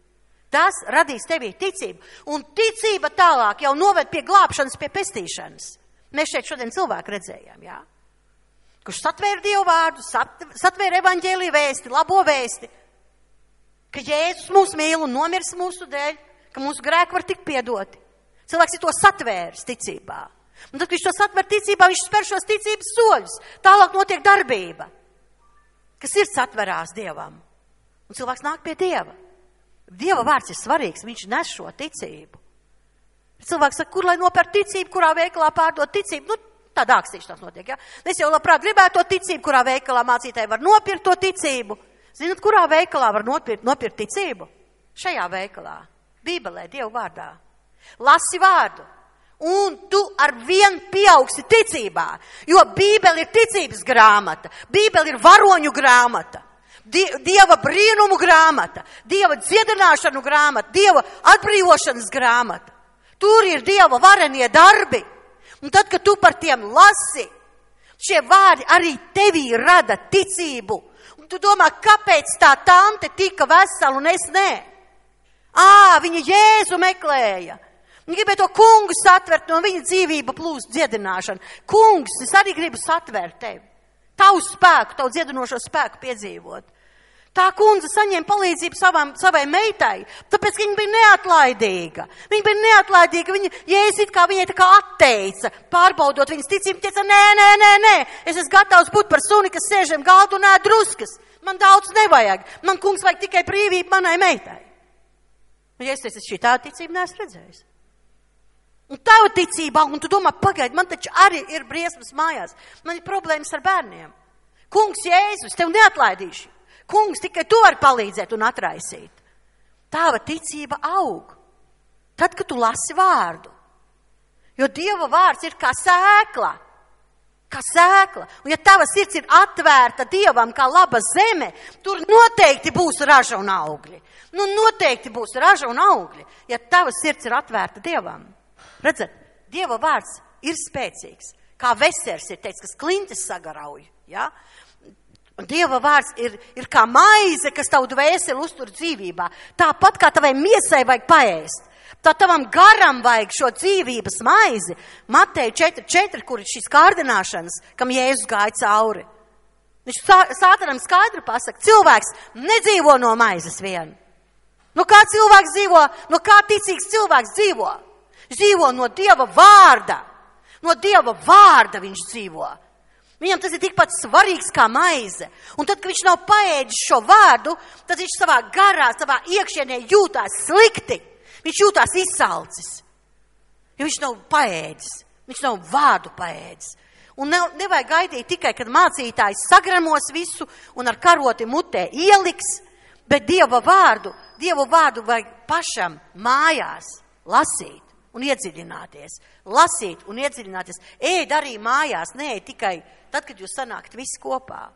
tas radīs tevī ticību. Un ticība tālāk jau noved pie glābšanas, pie pestīšanas. Mēs šeit šodien cilvēku redzējām, jā? Kurš satvēra Dievu vārdu, satvēra evaņģēliju vēsti, labo vēsti, ka Jēzus mūs mīl un nomirs mūsu dēļ, ka mūsu grēki var tikt piedoti. Cilvēks ir to satvēris ticībā. Un tad, kad viņš to satver ticībā, viņš spēr šos ticības soļus. Tālāk notiek darbība, ka sirds atverās Dievam. Un cilvēks nāk pie Dieva. Dieva vārds ir svarīgs, viņš nes šo ticību. Cilvēks saka, kur lai nopērk ticību, kurā veikalā pārdot ticību? Nu, tādā akstīšanās notiek, ja? Es jau labprāt gribētu to ticību, kurā veikalā mācītāji var nopirkt to ticību. Zinat, kurā veikalā var nopirkt ticību? Šajā veikalā, Bībelē, Dievu vārdā. Lasi vārdu, un tu ar vien pieaugsi ticībā, jo Bībele ir ticības grāmata, Bībele ir varoņu grāmata, Dieva brīnumu grāmata, Dieva dziedināšanu grāmata, Dieva atbrīvošanas grāmata. Tur ir Dieva varenie darbi. Un tad, kad tu par tiem lasi, šie vārdi arī tevī rada ticību. Un tu domā, kāpēc tā tante tika vesela un es nē? Viņa Jēzu meklēja. Viņa gribēja to kungu satvert, no viņa dzīvība plūst dziedināšana. Kungs, es arī gribu satvert tevi. Tavu spēku, tavu dziedinošo spēku piedzīvot. Tā kundze saņēma palīdzību savai meitai, tāpēc, ka viņa bija neatlaidīga. Viņa bija neatlaidīga, Jēzus it kā viņai tā kā atteica, pārbaudot viņas ticību, teica, nē, es esmu gatavs būt par suni, kas sēžam galdu un ēd druskas. Man daudz nevajag, man kungs vajag tikai brīvību manai meitai. Un Jēzus teica, es šī tāda ticība neesmu redzējis. Un tava ticībā, un tu domā, pagaidi, man taču arī ir briesmas mājās, man ir problēmas ar bērniem. Kungs Jēzus, tev neatlaidīšu. Kungs, tikai tu vari palīdzēt un atraisīt. Tava ticība aug. Tad, kad tu lasi vārdu. Jo Dieva vārds ir kā sēkla. Kā sēkla. Un ja tava sirds ir atvērta Dievam kā laba zeme, tur noteikti būs raža un augļi. Noteikti būs raža un augļi, ja tava sirds ir atvērta Dievam. Redzat, Dieva vārds ir spēcīgs. Kā vesers ir teicis, kas klintis sagarauj. Ja? Un Dieva vārds ir kā maize, kas tavu dvēseli uztur dzīvībā. Tāpat kā tavai miesai vajag paēst. Tā tavam garam vajag šo dzīvības maizi. Mateja 4.4, kur ir šīs kārdināšanas, kam Jēzus gāja cauri. Viņš Sātanam skaidri pasaka, cilvēks nedzīvo no maizes vien. No kā cilvēks dzīvo? No kā ticīgs cilvēks dzīvo? Dzīvo no Dieva vārda. No Dieva vārda viņš dzīvo. Viņam tas ir tikpat svarīgs kā maize. Un tad, kad viņš nav paēdis šo vārdu, tad viņš savā garā, savā iekšienē jūtās slikti. Viņš jūtās izsalcis. Jo viņš nav paēdis. Viņš nav vārdu paēdis. Un nevajag gaidīt tikai, kad mācītājs sagramos visu un ar karoti mutē ieliks, bet Dieva vārdu vajag pašam mājās lasīt un iedziļināties. Lasīt un iedziļināties. Ēd arī mājās, neēd tikai tad, kad jūs sanākat visi kopā.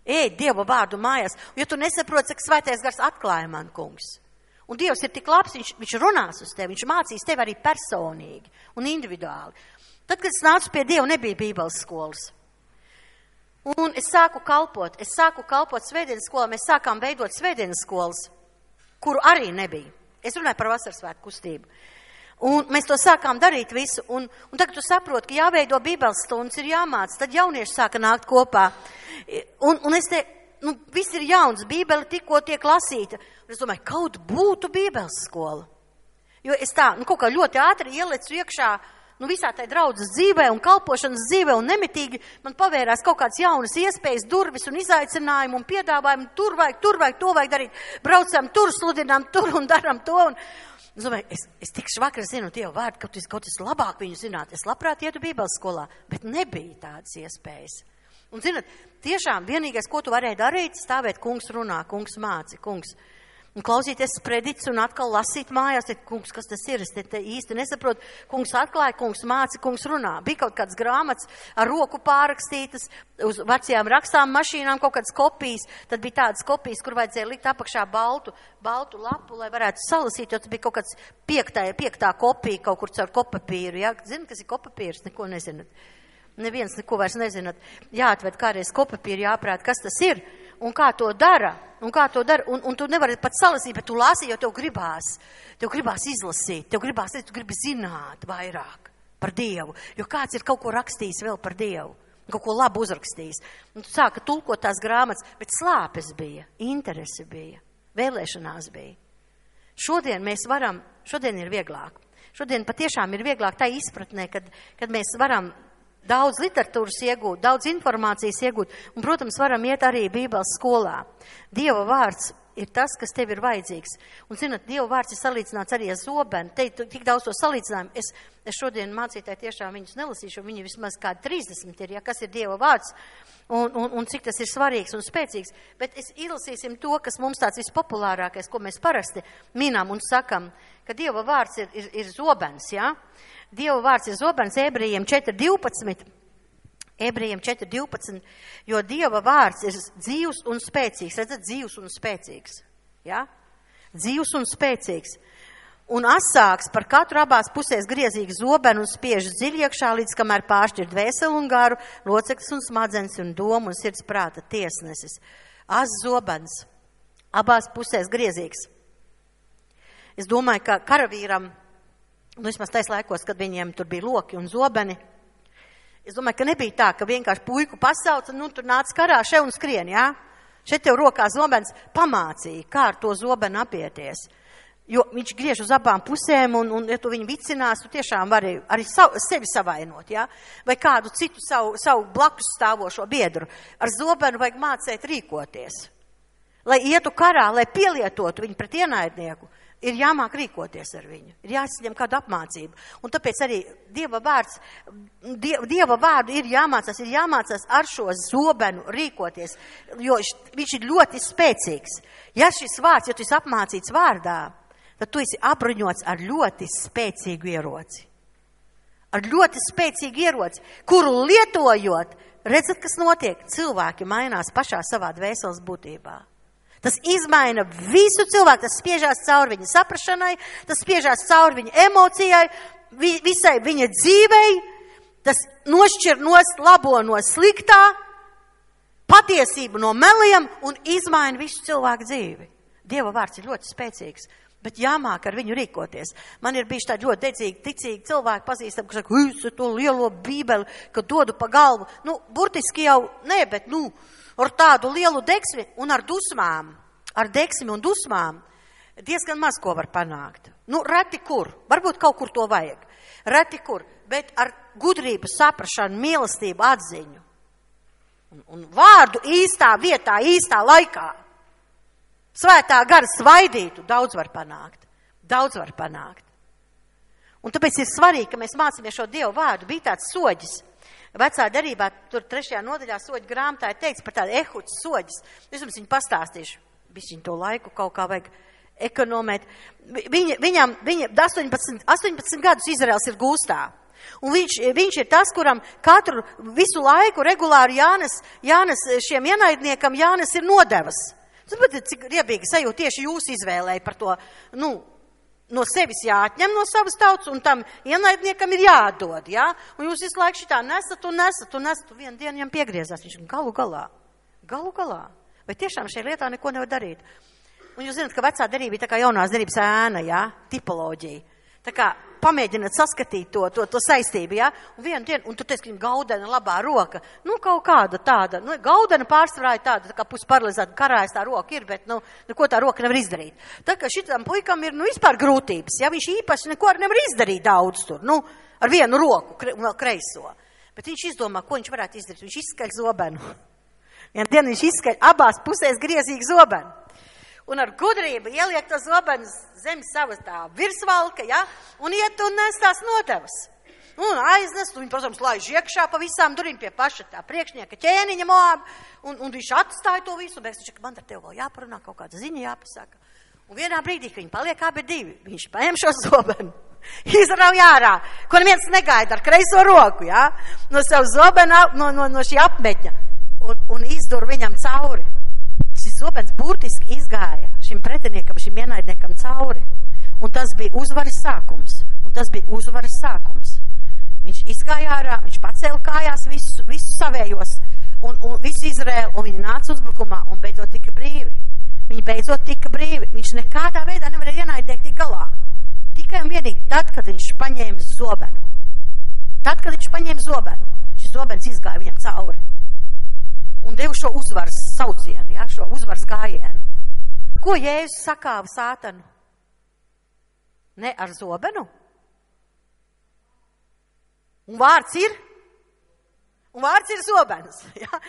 Ēd Dieva vārdu mājās. Un, ja tu nesaproti, cik svētais gars atklāja man, kungs. Un Dievs ir tik labs, viņš runās uz tevi, viņš mācīs tevi arī personīgi un individuāli. Tad, kad es nācu pie Dieva, nebija Bībeles skolas. Un es sāku kalpot svētdienas skolā, mēs sākām veidot svētdienas skolas, kuru arī nebija. Es runāju par vasarsvētku kustību. Un mēs to sākām darīt visu, un tagad tu saproti, ka jāveido Bībeles stundas, ir jāmāc, tad jaunieši sāka nākt kopā. Un es te, viss ir jauns, Bībele tikko tiek lasīta. Un es domāju, kaut būtu Bībeles skola. Jo es tā, kaut kā ļoti ātri ielecu iekšā, visā tai draudzes dzīvē un kalpošanas dzīvē un nemitīgi man pavērās kaut kāds jaunas iespējas, durvis un izaicinājumu un piedāvājumu, tur vajag, to vajag darīt, braucam tur, sludinām tur un daram to. Un es domāju, es tikšu vakar zinu Dievu vārdu, kaut es labāk viņu zināt, es labprāt ietu Bībeles skolā, bet nebija tādas iespējas. Un zināt, tiešām vienīgais, ko tu varēji darīt, stāvēt, kungs runā, kungs māci, kungs. Un klausīties sprediķus un atkal lasīt mājās, kungs, kas tas ir, es te īsti nesaprotu, kungs atklāja, kungs māci, kungs runā. Bija kaut kāds grāmatas ar roku pārrakstītas, uz vecajām rakstām mašīnām kaut kādas kopijas, tad bija tādas kopijas, kur vajadzēja likt apakšā baltu lapu, lai varētu salasīt, jo tas bija kaut kāds piektā kopija kaut kur caur kopapīru, ja? Zini, kas ir kopapīrs? Neko nezināt. Neviens neko vairs nezināt. Jāatved kādreiz kopapīru, jāprāt, kas tas ir un kā to dara. Un kā to dara? Un tu nevari pat salasīt, bet tu lasi, jo tev gribās izlasīt, tu gribi zināt vairāk par Dievu. Jo kāds ir kaut ko rakstījis vēl par Dievu, kaut ko labu uzrakstījis. Un tu sāka tulkot tās grāmatas, bet slāpes bija, interese bija, vēlēšanās bija. Šodien ir vieglāk. Šodien patiešām ir vieglāk tā izpratnē, kad mēs varam daudz literatūras iegūt, daudz informācijas iegūt, un, protams, varam iet arī Bībeles skolā. Dieva vārds ir tas, kas tev ir vajadzīgs. Un, zināt, Dieva vārds ir salīdzināts arī ar zobenu. Te tik daudz to salīdzinājumu. Es šodien mācītāji tiešām viņus nelasīšu, viņi vismaz kādi 30 ir, ja, kas ir Dieva vārds, un cik tas ir svarīgs un spēcīgs. Bet izlasīsim to, kas mums tāds vispopulārākais, ko mēs parasti minām un sakam, ka Dieva vārds ir zobens, ja? Dieva vārds ir zobens, Ebrejiem 4.12, jo Dieva vārds ir dzīvs un spēcīgs. Redzat, dzīvs un spēcīgs. Ja? Dzīvs un spēcīgs. Un asāks par katru abās pusēs griezīgu zobenu un spiež dziļi iekšā, līdz kamēr pāršķir dvēseli un garu, loceklis un smadzenes un domu un sirds prāta tiesnesis. As zobens. Abās pusēs griezīgs. Es domāju, ka karavīram, vismaz tais laikos, kad viņiem tur bija loki un zobeni, es domāju, ka nebija tā, ka vienkārši puiku pasauca, tur nāc karā še un skrien, jā? Šeit tev rokā zobens pamācīja, kā ar to zobenu apieties. Jo viņš griež uz abām pusēm, un ja tu viņu vicinās, tu tiešām vari arī sevi savainot, jā? Vai kādu citu savu blakus stāvošo biedru. Ar zobenu vajag mācēt rīkoties. Lai ietu karā, lai pielietotu viņu pret ienaidnieku, ir jāmāk rīkoties ar viņu, ir jāsaņem kādu apmācību. Un tāpēc arī Dieva vārdu ir jāmācās ar šo zobenu rīkoties, jo viņš ir ļoti spēcīgs. Ja šis vārds, ja tu esi apmācīts vārdā, tad tu esi apbruņots ar ļoti spēcīgu ieroci. Ar ļoti spēcīgu ieroci, kuru lietojot, redzat, kas notiek, cilvēki mainās pašā savā dvēseles būtībā. Tas izmaina visu cilvēku, tas spiežās cauri viņa saprašanai, tas spiežās cauri viņa emocijai, visai viņa dzīvei, tas nošķir labo no sliktā, patiesību no meliem un izmaina visu cilvēku dzīvi. Dieva vārds ir ļoti spēcīgs, bet jāmāk ar viņu rīkoties. Man ir bijuši tādi ļoti dedzīgi, ticīgi cilvēki pazīstami, kas saka, es to lielo bībeli, ka dodu pa galvu. Burtiski jau ne, bet ar tādu lielu deksmi un ar dusmām, ar deksmi un dusmām, diezgan maz ko var panākt. Reti kur, varbūt kaut kur to vajag. Reti kur, bet ar gudrību, saprašanu, mīlestību, atziņu. Un vārdu īstā vietā, īstā laikā. Svētā gara svaidītu, daudz var panākt. Daudz var panākt. Un tāpēc ir svarīgi, ka mēs mācāmies šo Dievu vārdu. Bija tāds soģis. Vecā derībā, tur 3. nodaļā soģu grāmatā ir teikts par tādu ehuķu soģis. Es jums viņu pastāstīšu. Bišķiņ to laiku kaut kā vajag ekonomēt. Viņam 18 gadus Izraels ir gūstā. Un viņš ir tas, kuram visu laiku regulāri Jānes šiem ienaidniekam Jānes ir nodevas. Saprotiet, cik riebīgi sajūt tieši jūs izvēlēja par to, no sevis jāatņem no savas tautas, un tam ienaidniekam ir jādod, jā? Un jūs visu laiku šitā nesat. Vienu dienu viņam piegriezās, viņš galu galā. Vai tiešām šajā lietā neko nevar darīt? Un jūs zināt, ka vecā derība ir tā kā jaunās derības ēna, jā? Tipoloģija. Tā kā pamēģināt saskatīt to saistību, jā? Un vienu dienu, un tu teici, ka viņam gaudena labā roka. Kaut kāda tāda, gaudena pārsvarā ir tāda, tā kā pusparalizēta karājas tā roka ir, bet, neko tā roka nevar izdarīt. Tā kā šitam puikam ir, vispār grūtības, ja viņš īpaši neko nevar izdarīt daudz tur, ar vienu roku, un vēl kreiso. Bet viņš izdomā, ko viņš varētu izdarīt. Viņš izskaļ zobenu. Vienu dienu viņš izskaļ abās pusēs griezīgu zobenu. Un ar gudrību ieliek to zobenu zem savas tā virsvalka, ja? Un iet un nes tās nodevas. Un aiznes, un viņi, protams, laiž iekšā pa visām durīm pie paša tā priekšnieka ķēniņa Moab, un viņš atstāja to visu, un viņš, man ar tev vēl jāparunā, kaut kāda ziņa jāpasaka. Un vienā brīdī, ka viņi paliek abi divi, viņš paņem šo zobenu, izrauj ārā, ko neviens negaida ar kreiso roku, ja? No savu zobenu, no šī apmetņa, un izdur viņam cauri. Šis zobens burtiski izgāja šim pretiniekam, šim ienaidniekam cauri. Un tas bija uzvaras sākums. Viņš izgāja ārā, viņš pacēla kājās visu savējos un visu Izraēlu, un viņi nāca uzbrukumā un beidzot tika brīvi. beidzot tika brīvi. Viņš nekādā veidā nevarēja ienaidnieki tik galā. Tikai un vienīgi tad, kad viņš paņēma zobenu. Tad, kad viņš paņēma zobenu, šis zobens izgāja viņam cauri. Un deva šo uzvaras saucienu, ja, šo uzvaras gājienu. Ko Jēzus sakāva sātanu? Ne ar zobenu? Un vārds ir? Un vārds ir zobens. Ja?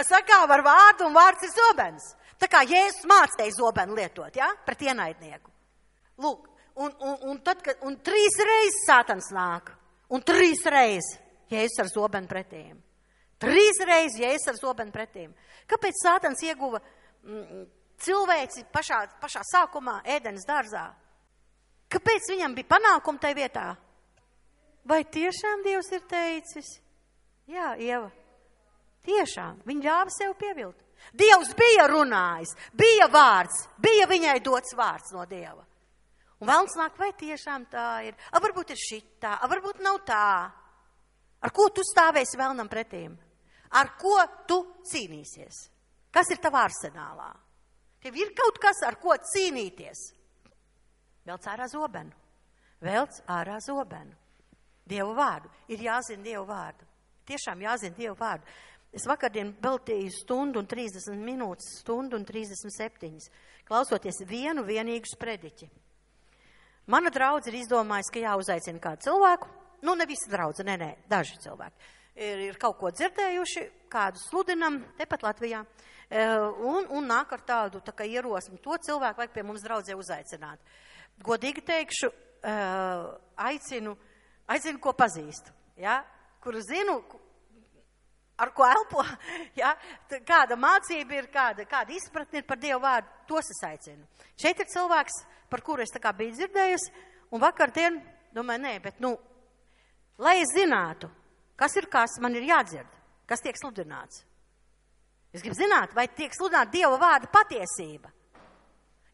Sakāva ar vārdu un vārds ir zobens. Tā kā Jēzus mācīja zobenu lietot, ja? Pret ienaidnieku. Lūk, un 3 reizes sātans nāk. Un 3 reizes Jēzus ar zobenu pretīm. 3 reizes Jēzus ar zobenu pretīm. Kāpēc sātans ieguva cilvēci pašā sākumā ēdenes dārzā? Kāpēc viņam bija panākumi tai vietā? Vai tiešām Dievs ir teicis? Jā, Ieva, tiešām, viņa ļāva sev pievilt. Dievs bija runājis, bija vārds, bija viņai dots vārds no Dieva. Un vēlns nāk, vai tiešām tā ir? Varbūt ir šitā, varbūt nav tā. Ar ko tu stāvēsi vēlnam pretīm? Ar ko tu cīnīsies? Kas ir tavā arsenālā? Tev ir kaut kas, ar ko cīnīties? Velc ārā zobenu. Velc ārā zobenu. Dievu vārdu. Ir jāzina Dievu vārdu. Tiešām jāzina Dievu vārdu. Es vakardien veltīju 1:30 minūtes, 1:37, klausoties vienīgu sprediķi. Mana draudze ir izdomājusi, ka jāuzaicina kādu cilvēku. Ne visi draudze, nē, daži cilvēki. Ir kaut ko dzirdējuši, kādu sludinam, tepat Latvijā, un nāk ar tādu tā kā ierosmi. To cilvēku vajag pie mums draudzē uzaicināt. Godīgi teikšu, aicinu, ko pazīstu, ja? Kuru zinu, ar ko elpo, ja? Kāda mācība ir, kāda izpratne ir par Dievu vārdu, tos es aicinu. Šeit ir cilvēks, par kuru es tā kā biju dzirdējusi, un vakardien domāju, nē, bet lai es zinātu, kas ir kas, man ir jādzird, kas tiek sludināts. Es gribu zināt, vai tiek sludināta Dieva vārda patiesība.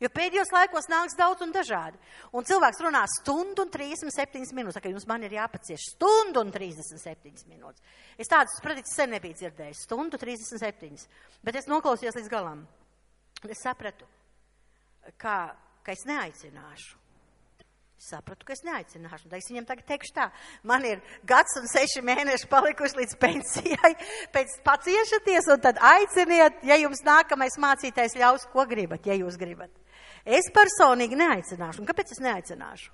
Jo pēdējos laikos nāks daudz un dažādi. Un cilvēks runā 1:37 minūtes. Tā kā jums man ir jāpacieš 1:37 minūtes. Es tādas sprediķus sen nebiju dzirdējis. 1:37. Bet es noklausījos līdz galam. Es sapratu, ka es neaicināšu. Sapratu, ka es neaicināšu. Un es viņam tagad teikšu tā. Man ir 1 un 6 mēneši palikuši līdz pensijai. Pēc paciešaties un tad aiciniet, ja jums nākamais mācītājs ļaus, ko gribat, ja jūs gribat. Es personīgi neaicināšu. Un kāpēc es neaicināšu?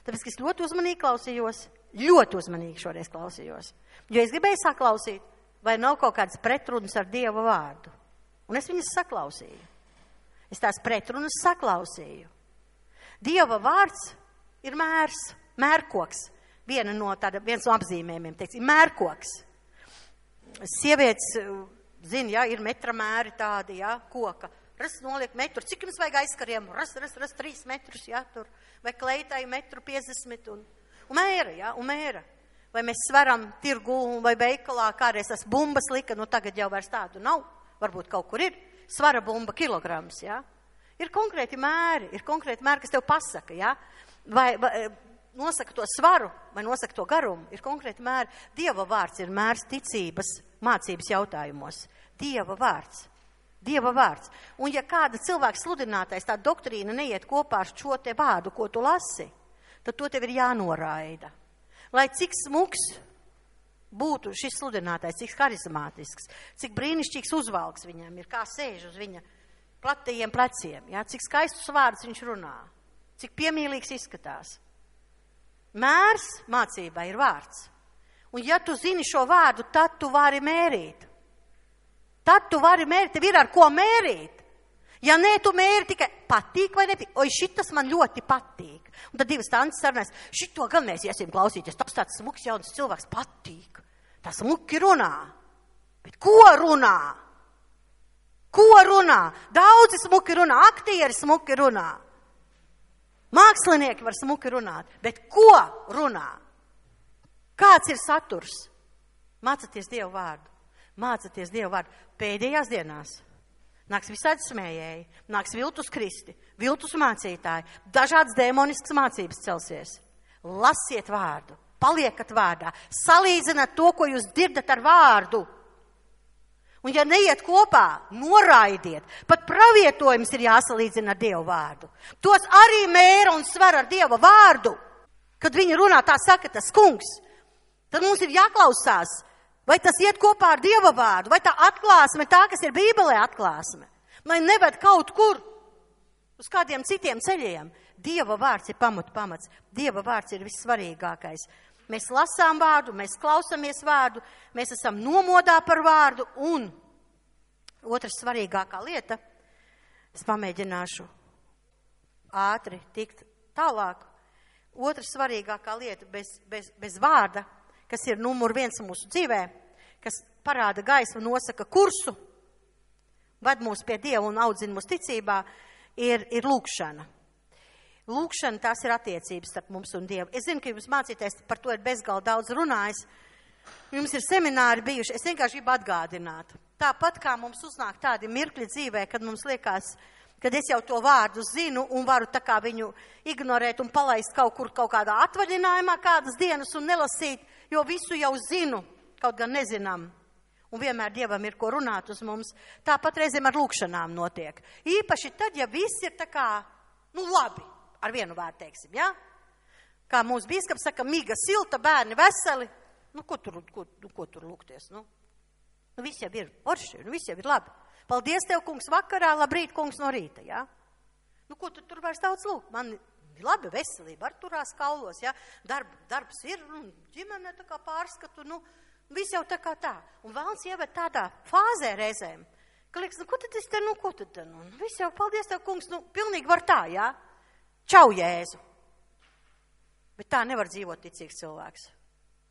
Tāpēc, ka es ļoti uzmanīgi klausījos. Ļoti uzmanīgi šoreiz klausījos. Jo es gribēju saklausīt, vai nav kaut kādas pretrunas ar Dieva vārdu. Un es viņas saklausīju. Es tās pretrunas saklausīju. Dieva vārds ir mērs, mērkoks. Viens no apzīmējumiem, teiksim, mērkoks. Sievietes, zina, ja, ir metra mēri tādi, ja, koka. Noliek metru, cik jums vajag aizkariem? 3 metrus, ja, tur. Vai kleitai 1,50 m. Un mēra, ja, un mēra. Vai mēs svaram tirgu vai veikalā, kādreiz tas bumbas lika, tagad jau vairs tādu nav. Varbūt kaut kur ir. Svara bumba kilograms, ja. Ir konkrēti mēri, kas tev pasaka, ja. Vai nosaka to svaru, vai nosaka to garumu, ir konkrēti mēri. Dieva vārds ir mērs ticības mācības jautājumos. Dieva vārds. Un ja kāda cilvēka sludinātais, tā doktrīna neiet kopā ar šo te vārdu, ko tu lasi, tad to tev ir jānoraida. Lai cik smuks būtu šis sludinātais, cik harizmātisks, cik brīnišķīgs uzvalks viņam ir, kā sēž uz viņa platajiem pleciem, ja? Cik skaistus vārdus viņš runā, cik piemīlīgs izskatās. Mērs mācībā ir vārds. Un ja tu zini šo vārdu, tad tu vari mērīt. Tev ir ar ko mērīt. Ja nē, tu mēri tikai patīk vai nepatīk. Oi, šitas man ļoti patīk. Un tad divas tantes sarunās, šito gan mēs iesim klausīties. Tas tāds smuks jauns cilvēks patīk. Tas smuki runā. Bet ko runā? Daudzi smuki runā, aktieri smuki runā. Mākslinieki var smuki runāt. Bet ko runā? Kāds ir saturs? Mācieties Dievu vārdu. Pēdējās dienās nāks visādi smējēji, nāks viltus kristi, viltus mācītāji, dažādas demoniskas mācības celsies. Lasiet vārdu, paliekat vārdā, salīdzināt to, ko jūs dzirdat ar vārdu. Un ja neiet kopā, noraidiet. Pat pravietojums ir jāsalīdzina ar Dievu vārdu. Tos arī mēra un sver ar Dieva vārdu. Kad viņi runā, tā saka tas kungs. Tad mums ir jāklausās, vai tas iet kopā ar Dieva vārdu, vai tā atklāsme, tā, kas ir Bībelē atklāsme. Lai neved kaut kur uz kādiem citiem ceļiem. Dieva vārds ir pamats. Dieva vārds ir vissvarīgākais. Mēs lasām vārdu, mēs klausamies vārdu, mēs esam nomodā par vārdu. Un otra svarīgākā lieta, es pamēģināšu ātri tikt tālāk. Otra svarīgākā lieta bez vārda, kas ir numur 1 mūsu dzīvē, kas parāda gaismu, nosaka kursu, ved mūs pie Dieva un audzina mūsu ticībā, ir lūkšana. Lūkšana, tās ir attiecības starp mums un Dievu. Es zinu, ka jums mācīties par to ir bezgalīgi daudz runājis. Jums ir semināri bijuši, es vienkārši gribu atgādināt. Tāpat kā mums uznāk tādi mirkļi dzīvē, kad mums liekas, kad es jau to vārdu zinu un varu tā kā viņu ignorēt un palaist kaut kur kaut kādā atvaļinājumā kādas dienas un nelasīt, jo visu jau zinu, kaut gan nezinām. Un vienmēr Dievam ir ko runāt uz mums. Tāpat reizēm ar lūkšanām notiek. Īpaši tad, ja viss ir tā kā, labi, ar vienu vārdu teiksim, ja? Kā mūsu bīskaps saka, miga, silta, bērni veseli. Ko tur lūgties, viss jau ir orši, viss jau ir labi. Paldies tev, kungs, vakarā, labrīt, kungs, no rīta, ja? Ko tu tur vairs daudz lūgt? Man labi veselība, ar turās kaulos, ja? Darbs ir, ģimene tā kā pārskatu, viss jau tā kā tā. Un vēlns ieved tādā fāzē reizēm, ka liekas, ko tad es te, viss jau, paldies tev, kungs, pilnīgi var tā, ja? Čau, Jēzu. Bet tā nevar dzīvot ticīgs cilvēks.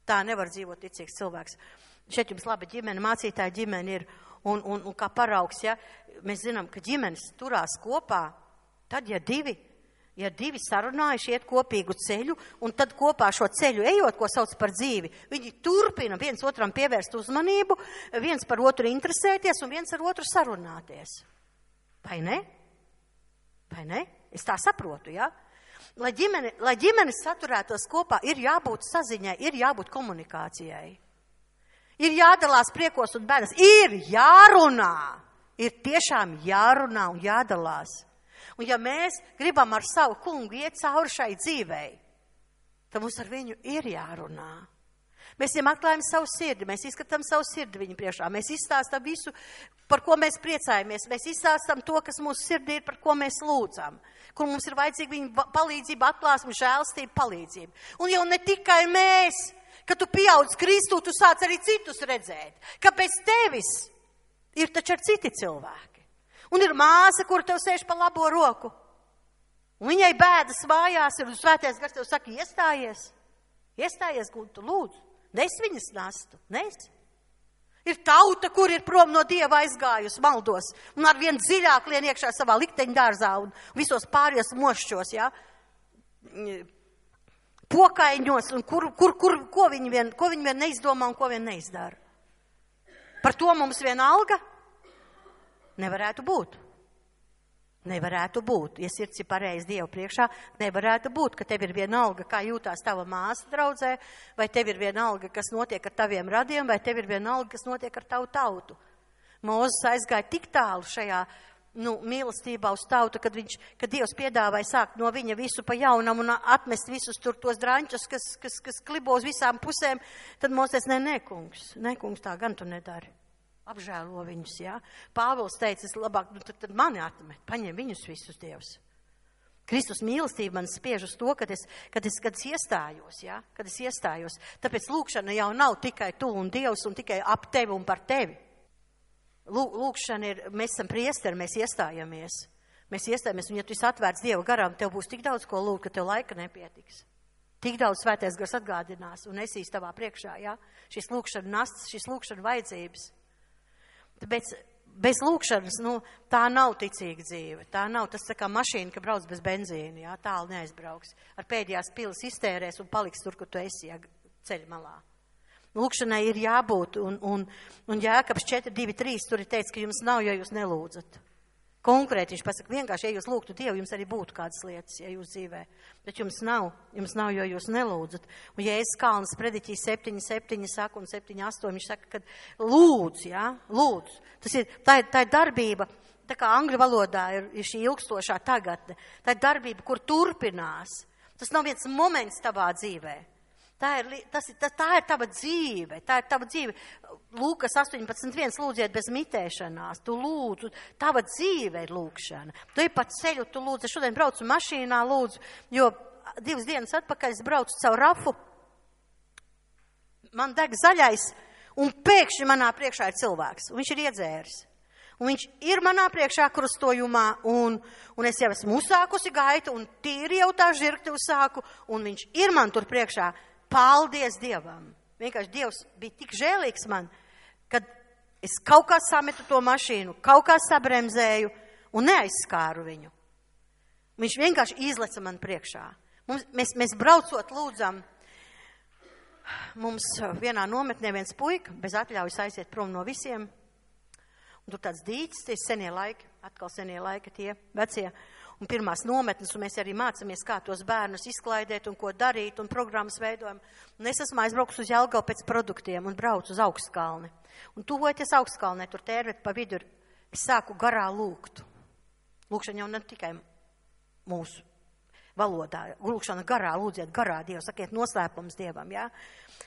Tā nevar dzīvot ticīgs cilvēks. Šeit jums laba ģimene, mācītāja ģimene ir, un kā paraugs, ja, mēs zinām, ka ģimenes turās kopā, tad, ja divi sarunājuši iet kopīgu ceļu, un tad kopā šo ceļu ejot, ko sauc par dzīvi, viņi turpina viens otram pievērst uzmanību, viens par otru interesēties un viens ar otru sarunāties. Vai ne? Vai ne? Es tā saprotu, ja? Lai ģimenes saturētos kopā, ir jābūt saziņai, ir jābūt komunikācijai. Ir jādalās priekos un bēdas, ir jārunā, ir tiešām jārunā un jādalās. Un ja mēs gribam ar savu kungu iet cauri šai dzīvei, tad mums ar viņu ir jārunā. Mēs viņam atklājam savu sirdi, mēs izskatām savu sirdi viņu priekšā, mēs izstāstam visu, par ko mēs priecājamies, mēs izstāstam to, kas mūsu sirdī ir, par ko mēs lūdzam, kur mums ir vajadzīga viņa palīdzība, atklāsme, žēlstība, palīdzība. Un jau ne tikai mēs, kad tu pieaudz Kristu, tu sāc arī citus redzēt, ka bez tevis ir taču ar citi cilvēki. Un ir māsa, kur tev sēž pa labo roku. Un viņai bēdas mājās ir, un svētais gars tev saka, iestājies, Guntu, lūdzu. Nes viņas nastu, nes. Ir tauta, kur ir prom no Dieva aizgājusi maldos, un ar vien dziļāk lien iekšā savā likteņu dārzā un visos pārējos mošķos, ja? Pokaiņos, un ko viņi vien neizdomā un ko vien neizdara. Par to mums vienalga nevarētu būt. Nevarētu būt, ja sirds ir pareizi Dievu priekšā, nevarētu būt, ka tev ir vienalga, kā jūtās tava māsa draudzē, vai tev ir vienalga, kas notiek ar taviem radiem, vai tev ir vienalga, kas notiek ar tavu tautu. Mūzes aizgāja tik tālu šajā mīlestībā uz tautu, kad Dievs piedāvāja sākt no viņa visu pa jaunam un atmest visus tur tos draņķus, kas klibo uz visām pusēm, tad Mūzes nē, kungs, tā gan tu nedari. Apžēlo viņus, jā. Pāvils teica, es labāk, tad mani atmet, paņem viņus visus Dievs. Kristus mīlestība man spiež uz to, kad es iestājos, jā, kad es iestājos. Tāpēc lūkšana jau nav tikai tu un Dievs un tikai ap tevi un par tevi. Lūkšana ir, mēs esam priesteri, mēs iestājamies, un ja tu esi atvērts Dieva garām, tev būs tik daudz ko lūgt, ka tev laika nepietiks. Tik daudz svētais gars atgādinās un esīs tavā priekšā, jā. Šis lūkšana nasts, šis lūkšana vajadzības. Tāpēc bez lūkšanas, tā nav ticīga dzīve. Tā nav, tas tā kā mašīna, ka brauc bez benzīna, jā, tālu neaizbrauks. Ar pēdējās pilas iztērēs un paliks tur, kur tu esi, jā, ceļa malā. Lūkšanai ir jābūt, un Jēkabs 4:2-3 tur ir teicis, ka jums nav, jo jūs nelūdzat. Konkrēti viņš pasaka, vienkārši, ja jūs lūgtu Dievu, jums arī būtu kādas lietas, ja jūs dzīvē. Bet jums nav, jo jūs nelūdzat. Un Jēzus Kalnas prediķī 7 saka un 7, 8, viņš saka, ka lūdz, jā, lūdz. Tā ir darbība, tā kā angļu valodā ir šī ilgstošā tagadne. Tā ir darbība, kur turpinās. Tas nav viens moments tavā dzīvē. Tā ir tava dzīve, Lūkas 18.1, lūdziet bez mitēšanās, tu lūdzu, tava dzīve ir lūkšana. Tu ej pa ceļu, tu lūdzu, es šodien braucu mašīnā, lūdzu, jo 2 dienas atpakaļ es braucu caur Rafu, man deg zaļais, un pēkšņi manā priekšā ir cilvēks, un viņš ir iedzēris. Un viņš ir manā priekšā krustojumā, un es jau esmu uzsākusi gaitu, un tīri jau tā žirkti uzsāku, un viņš ir man tur priekšā. Paldies Dievam. Vienkārši Dievs bija tik žēlīgs man, kad es kaut kā sametu to mašīnu, kaut kā sabremzēju un neaizskāru viņu. Viņš vienkārši izleca man priekšā. Mēs braucot lūdzam, mums vienā nometnē viens puika bez atļaujas aiziet prom no visiem. Un tur tāds dīķis, tie senie laiki, atkal senie laiki tie vecie. Un pirmās nometnes, un mēs arī mācāmies, kā tos bērnus izklaidēt un ko darīt, un programmas veidojam. Un es esmu aizbraukus uz Jelgavu pēc produktiem un braucu uz Augstkalni. Un tuvojoties Augstkalnē, tur tērvet pa vidu, es sāku garā lūgt. Lūkšana jau ne tikai mūsu valodā. Lūkšana garā, lūdziet garā Dievu, sakiet noslēpums Dievam, jā.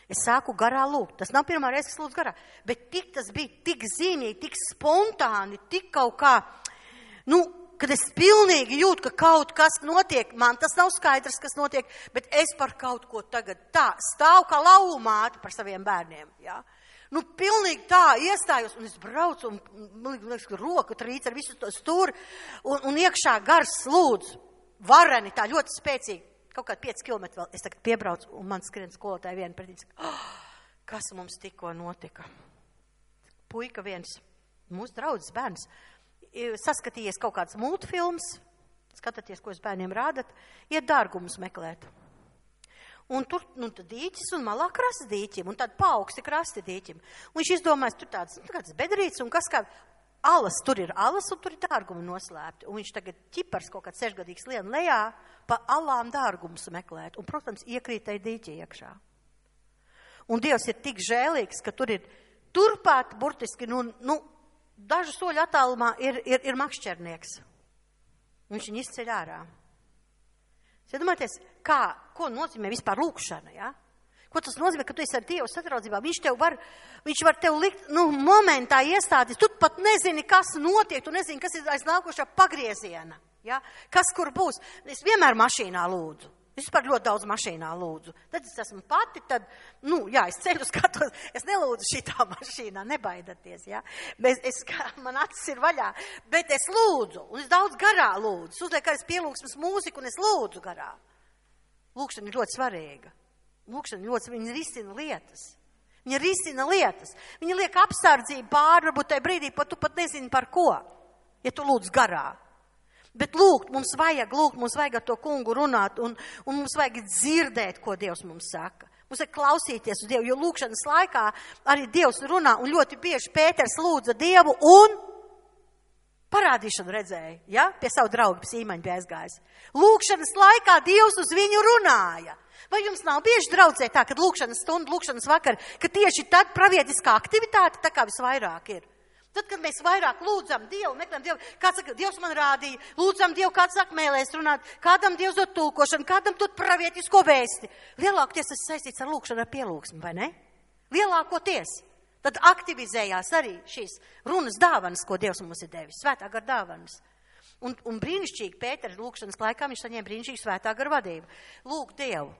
Es sāku garā lūgt. Tas nav pirmā reize, kas lūdz garā. Bet tas bija tik zīmīgi, tik spontāni, tik kaut kā, kad es pilnīgi jūtu, ka kaut kas notiek, man tas nav skaidrs, kas notiek, bet es par kaut ko tagad tā stāvu kā lauvu māte par saviem bērniem, jā. Pilnīgi tā iestājos, un es braucu, un liekas, ka roka trīc ar visu to stūri, un iekšā gars lūdzu, vareni, tā ļoti spēcīgi, kaut kādi 5 kilometri vēl, es tagad piebraucu, un man skrien skolotāji viena pretī, kas mums tikko notika. Puika viens, mūsu draudzes bērns, saskatījies kaut kāds multfilms, skatāties, ko jūs bērniem rādat, iet dārgumus meklēt. Un tur tad dīķis un malā krasti dīķim, un tad paaugsti krasti dīķim. Un viņš izdomājas, tur tāds bedrīts, un kas kā alas, tur ir alas, un tur ir dārgumi noslēpti. Un viņš tagad ķipars kaut kāds 6-gadīgs lien lejā, pa alām dārgumus meklēt. Un, protams, iekrītai dīķi iekšā. Un Dievs ir tik žēlīgs, ka tur ir turpāt burtiski, dažu soļu attālumā ir makšķernieks. Viņš viņu izceļ ārā. Iedomājieties, ko nozīmē vispār lūkšana, ja? Ko tas nozīmē, ka tu esi ar Dievu sadraudzībā? Viņš var tev likt, momentā iestāties. Tu pat nezini, kas notiek, tu nezini, kas ir aiz nākošā pagrieziena, ja? Kas kur būs. Es vienmēr mašīnā lūdzu. Es vispār ļoti daudz mašīnā lūdzu. Tad es esmu pati, es ceļu skatos, es nelūdzu šitā mašīnā, nebaidaties, jā. Man acis ir vaļā, bet es lūdzu, un es daudz garā lūdzu. Uzliek arī pielūgsmes mūziku, un es lūdzu garā. Lūkšana ir ļoti svarīga. Viņa risina lietas. Viņa liek apsardzību pāri, varbūt tajā brīdī, tu pat nezini par ko, ja tu lūdz garā. Bet lūgt, mums vajag ar to kungu runāt, un mums vajag dzirdēt, ko Dievs mums saka. Mums vajag klausīties uz Dievu, jo lūkšanas laikā arī Dievs runā, un ļoti bieži Pēters lūdza Dievu, un parādīšanu redzēja, ja? Pie savu draugu Sīmaņu bija aizgājis. Lūkšanas laikā Dievs uz viņu runāja. Vai jums nav bieži draudzē tā, kad lūkšanas stunda, lūkšanas vakar, ka tieši tad pravietiskā aktivitāte tā kā visvairāk ir? Tad, kad mēs vairāk lūdzam Dievu, meklējam Dievu, kāds saka, Dievs man rādīja, lūdzam Dievu, kāds saka mēlēs runāt, kādam Dievs dod tulkošanu, kādam dod pravietisko vēsti. Lielākoties tas saistīts ar lūkšanu, ar pielūgsmu, vai ne? Lielākoties. Tad aktivizējās arī šīs runas dāvanas, ko Dievs mums ir devis, svētā gara dāvanas. Un brīnišķīgi Pētera lūkšanas laikā viņš saņēma brīnišķīgu svētā gara vadību. Lūk Dievu,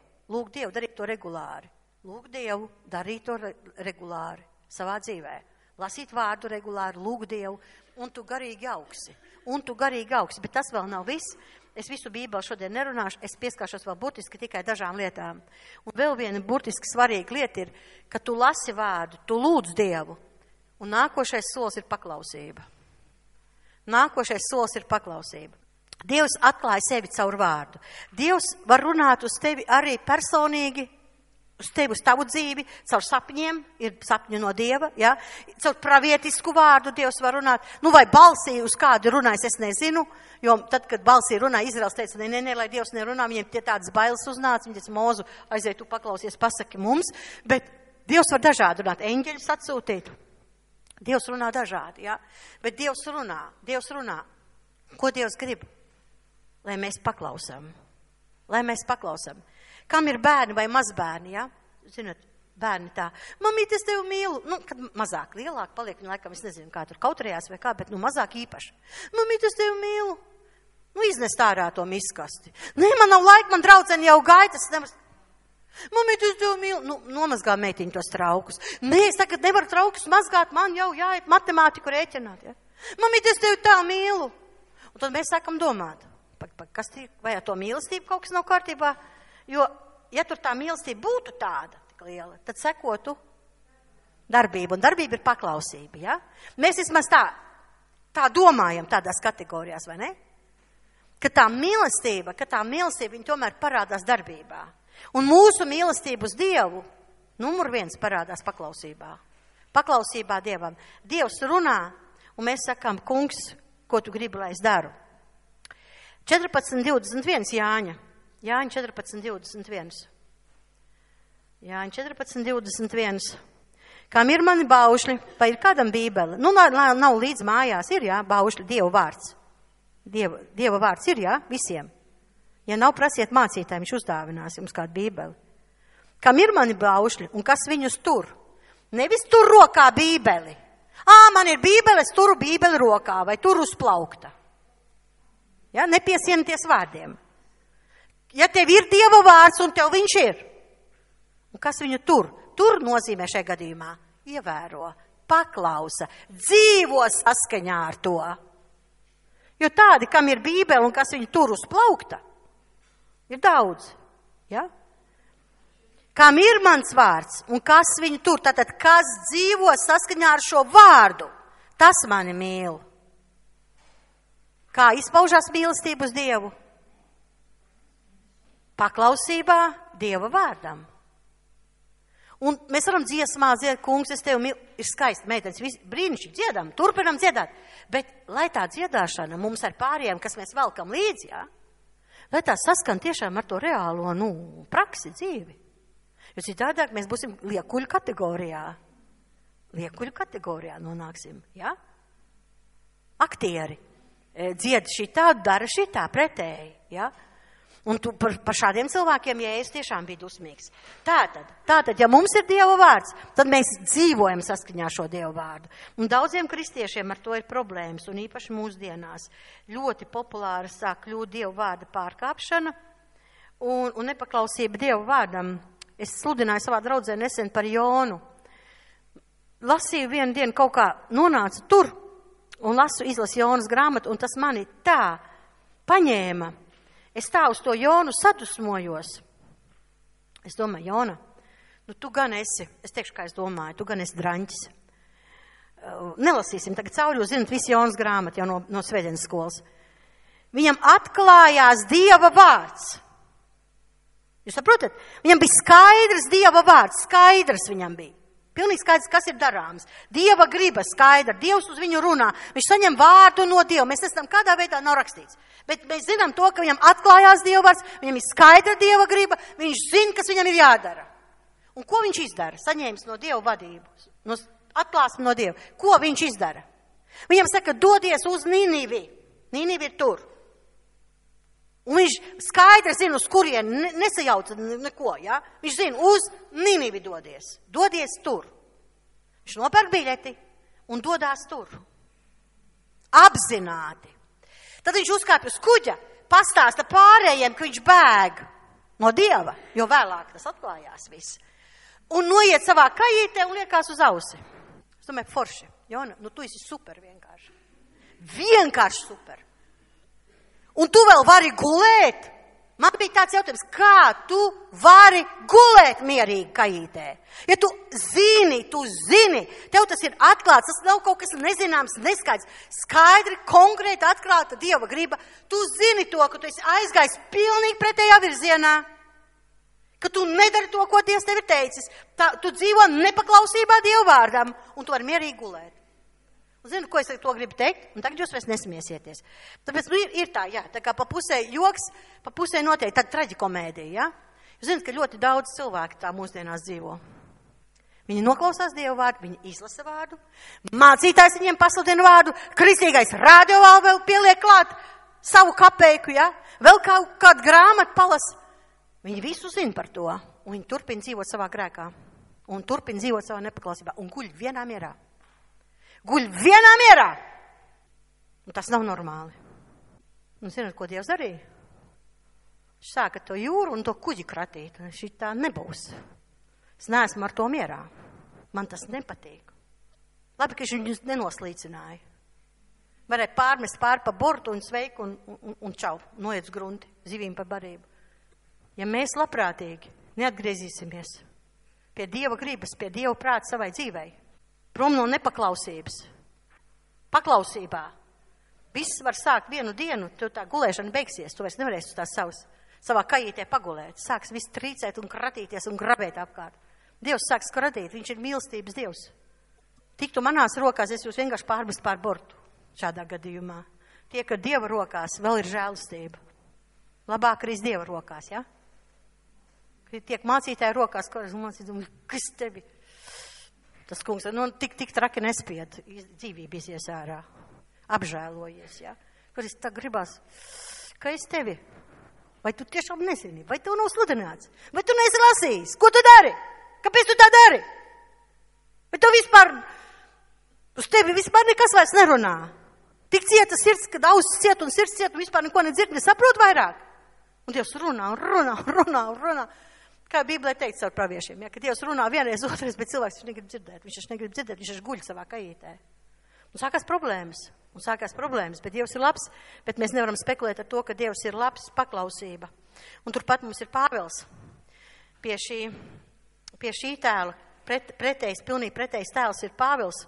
darīt to regulāri. Lūk Dievu, darīt to regulāri savā dzīvē. Lasīt vārdu regulāri, lūgt Dievu, un tu garīgi augsi. Bet tas vēl nav viss. Es visu Bībeli šodien nerunāšu, es pieskāršos vēl burtiski tikai dažām lietām. Un vēl viena burtiski svarīga lieta ir, ka tu lasi vārdu, tu lūdz Dievu, un nākošais solis ir paklausība. Dievs atklāja sevi caur vārdu. Dievs var runāt uz tevi arī personīgi, uz tevi, uz tavu dzīvi, caur sapņiem, ir sapņi no Dieva, ja? Caur pravietisku vārdu Dievs var runāt, nu vai balsī uz kādu runājas, es nezinu, jo tad, kad balsī runā, Izraels teica, ne, lai Dievs nerunā, viņiem tie tādas bailes uznāca, viņi teica, Mūzu, aiziet, tu paklausies, pasaki mums, bet Dievs var dažādi runāt, eņģeļus atsūtīt, Dievs runā dažādi, ja? Bet Dievs runā, ko Dievs grib, lai mēs paklausam, Kam ir bērni vai mazbērni, ja? Zināt, bērni tā. Mamīt, es tevi mīlu. Nu, kad mazāk, lielāk paliek, viņa laikam, es nezinu, kā tur kautrējās vai kā, bet nu mazāk īpaši. Mamīt, es tevi mīlu. Nu, iznest ārā to miskasti. Nē, man nav laika, man draudzeni jau gaitas. Mamīt, es tevi mīlu. Nu, nomazgā meitiņu tos traukus. Nē, es tagad nevaru traukus mazgāt, man jau jāiet matemātiku rēķināt, ja? Mamīt, es tevi tā mīlu. Un tad mēs sākam domāt, kas vai ar to mīlestību kaut kas nav kārtībā? Jo, ja tur tā mīlestība būtu tāda tik liela, tad sekotu darbība, un darbība ir paklausība, ja? Mēs vismaz tā domājam tādās kategorijās, vai ne? Ka tā mīlestība, viņa tomēr parādās darbībā. Un mūsu mīlestība uz Dievu, numur 1 parādās paklausībā. Paklausībā Dievam. Dievs runā, un mēs sakām, kungs, ko tu gribi, lai es daru? 14:21 Jāņa 14:21. Jāņa 14:21. Kam ir mani baušļi, vai ir kādam bībele? Nu, nav līdz mājās, ir, jā, baušļi, Dieva vārds. Dieva vārds ir, jā, visiem. Ja nav, prasiet mācītājiem, viņš uzdāvinās jums kādu bībeli. Kam ir mani baušļi un kas viņus tur? Nevis tur rokā bībeli. Man ir bībele, es turu bībeli rokā vai turu uz plaukta. Ja, nepiesienieties vārdiem. Ja tev ir Dieva vārds un tev viņš ir, un kas viņu tur? Tur nozīmē šajā gadījumā ievēro, paklausa, dzīvo saskaņā ar to. Jo tādi, kam ir bībele un kas viņu tur uz plaukta, ir daudz. Ja? Kam ir mans vārds un kas viņu tur, tātad kas dzīvo saskaņā ar šo vārdu, tas mani mīl. Kā izpaužās mīlestība uz Dievu? Paklausībā Dieva vārdam. Un mēs varam dziesmā dziedāt, kungs, es tevi mīlu, ir skaisti, meitenes, brīnišķīgi dziedam, turpinam dziedāt. Bet, lai tā dziedāšana mums ar pārējiem, kas mēs velkam līdzi, jā, lai tā saskan tiešām ar to reālo, praksi dzīvi. Jo citādāk mēs būsim liekuļu kategorijā. Liekuļu kategorijā nonāksim, jā? Aktieri dzied šitā, dara šitā pretēji, jā? Un tu par šādiem cilvēkiem, ja es tiešām biju dusmīgs. Tātad, ja mums ir Dieva vārds, tad mēs dzīvojam saskaņā šo Dieva vārdu. Un daudziem kristiešiem ar to ir problēmas, un īpaši mūsdienās ļoti populāra sāk kļūt Dieva vārda pārkāpšana un nepaklausība Dieva vārdam. Es sludināju savā draudzē nesen par Jonu. Lasīju vienu dienu kaut kā nonāca tur un izlasu Jonas grāmatu, un tas mani tā paņēma. Es tā uz to Jonu sadusmojos. Es domāju, Jona, tu gan esi, es teikšu, kā es domāju, tu gan esi draņķis. Nelasīsim tagad cauri, jūs zinat, visi Jonas grāmati jau no svētdienas skolas. Viņam atklājās Dieva vārds. Jūs saprotat? Viņam bija skaidrs Dieva vārds, skaidrs viņam bija. Pilnīgi skaidrs, kas ir darāms. Dieva griba skaidra, Dievs uz viņu runā. Viņš saņem vārdu no Dieva. Mēs nezinām, kādā veidā nav rakstīts. Bet mēs zinām to, ka viņam atklājās Dieva vārds, viņam ir skaidra Dieva griba, viņš zina, kas viņam ir jādara. Un ko viņš izdara? Saņēmis no Dieva vadību, atklāsmi no Dieva. Ko viņš izdara? Viņam saka, dodies uz Ninivi. Ninivi ir tur. Un viņš skaidri zina, uz kurien, nesajauca neko, ja? Viņš zina, uz Ninivi dodies. Dodies tur. Viņš nopērk biļeti un dodās tur. Apzināti. Tad viņš uzkāpj uz kuģa, pastāsta pārējiem, ka viņš bēg no Dieva, jo vēlāk tas atklājās viss. Un noiet savā kajītē un liekās uz ausi. Es domāju, forši, Jona, tu esi super vienkārši. Vienkārši super. Un tu vēl vari gulēt? Man bija tāds jautājums, kā tu vari gulēt mierīgi kajītē? Ja tu zini, tev tas ir atklāts, tas nav kaut kas nezināms, neskaidrs, skaidri, konkrēti atklāta Dieva griba. Tu zini to, ka tu esi aizgājis pilnīgi pretējā virzienā. Ka tu nedari to, ko Dievs tev ir teicis. Tu dzīvo nepaklausībā Dievu vārdam, un tu vari mierīgi gulēt. Un zinu, ko es to gribu teikt, un tagad jūs vairs nesmiesieties. Tāpēc ir tā, jā, tā kā pa pusē joks, pa pusē noteikti tāda traģikomēdija, jā. Jūs zināt, ka ļoti daudz cilvēku tā mūsdienās dzīvo. Viņi noklausās Dievu vārdu, viņi izlasa vārdu, mācītājs viņiem pasludina vārdu, kristīgais rādio vēl pieliek klāt savu kapeiku, jā, vēl kādu grāmatu palas. Viņi visu zina par to, un viņi turpina dzīvot savā grēkā, un turpina dzīvot savā nepaklausībā, un guļ vienā mierā. Guļ vienā mierā! Un tas nav normāli. Un zināt, ko Dievs darīja? Viņš sāka to jūru un to kuģi kratīt, un šī tā nebūs. Es neesmu ar to mierā. Man tas nepatīk. Labi, ka viņš viņus nenoslīcināja. Varēja pārmest pāri pa bortu un sveiku un čau, noiet uz grunti, zivīm par barību. Ja mēs labprātīgi neatgriezīsimies pie Dieva gribas, pie Dieva prāta savai dzīvei, prom no nepaklausības, paklausībā, viss var sākt vienu dienu, tu tā gulēšana beigsies, tu vairs nevarēsi uz tās savā kajītē pagulēt, sāks viss trīcēt un kratīties un grabēt apkārt. Dievs sāks kratīt, viņš ir mīlestības Dievs. Tiktu manās rokās, es jūs vienkārši pārmest pār bortu šādā gadījumā. Tie, ka Dieva rokās vēl ir žēlastība. Labāk arī Dieva rokās, ja? Tiek mācītāji rokās, kas tevi? Tas kungs, tik traki nespied, dzīvība izies ārā, apžēlojies, ja? Kur es tā gribās, ka es tevi, vai tu tiešām nezini, vai tu nav sludināts, vai tu neesi lasījis, ko tu dari? Kāpēc tu tā dari? Vai tu vispār, uz tevi vispār nekas vairs nerunā? Tik cieta sirds, kad ausis ciet un sirds ciet un vispār neko nedzird, nesaprot vairāk. Un Dievs runā. Kā Bībelē teikt caur praviešiem, ja, ka Dievs runā vienreiz, otrais, bet cilvēks viņš negrib dzirdēt, viņš guļ savā kajītē. Un sākās problēmas, bet Dievs ir labs, bet mēs nevaram spekulēt ar to, ka Dievs ir labs, paklausība. Un turpat mums ir Pāvils pie šī tēla, pilnīgi pretējs tēls ir Pāvils,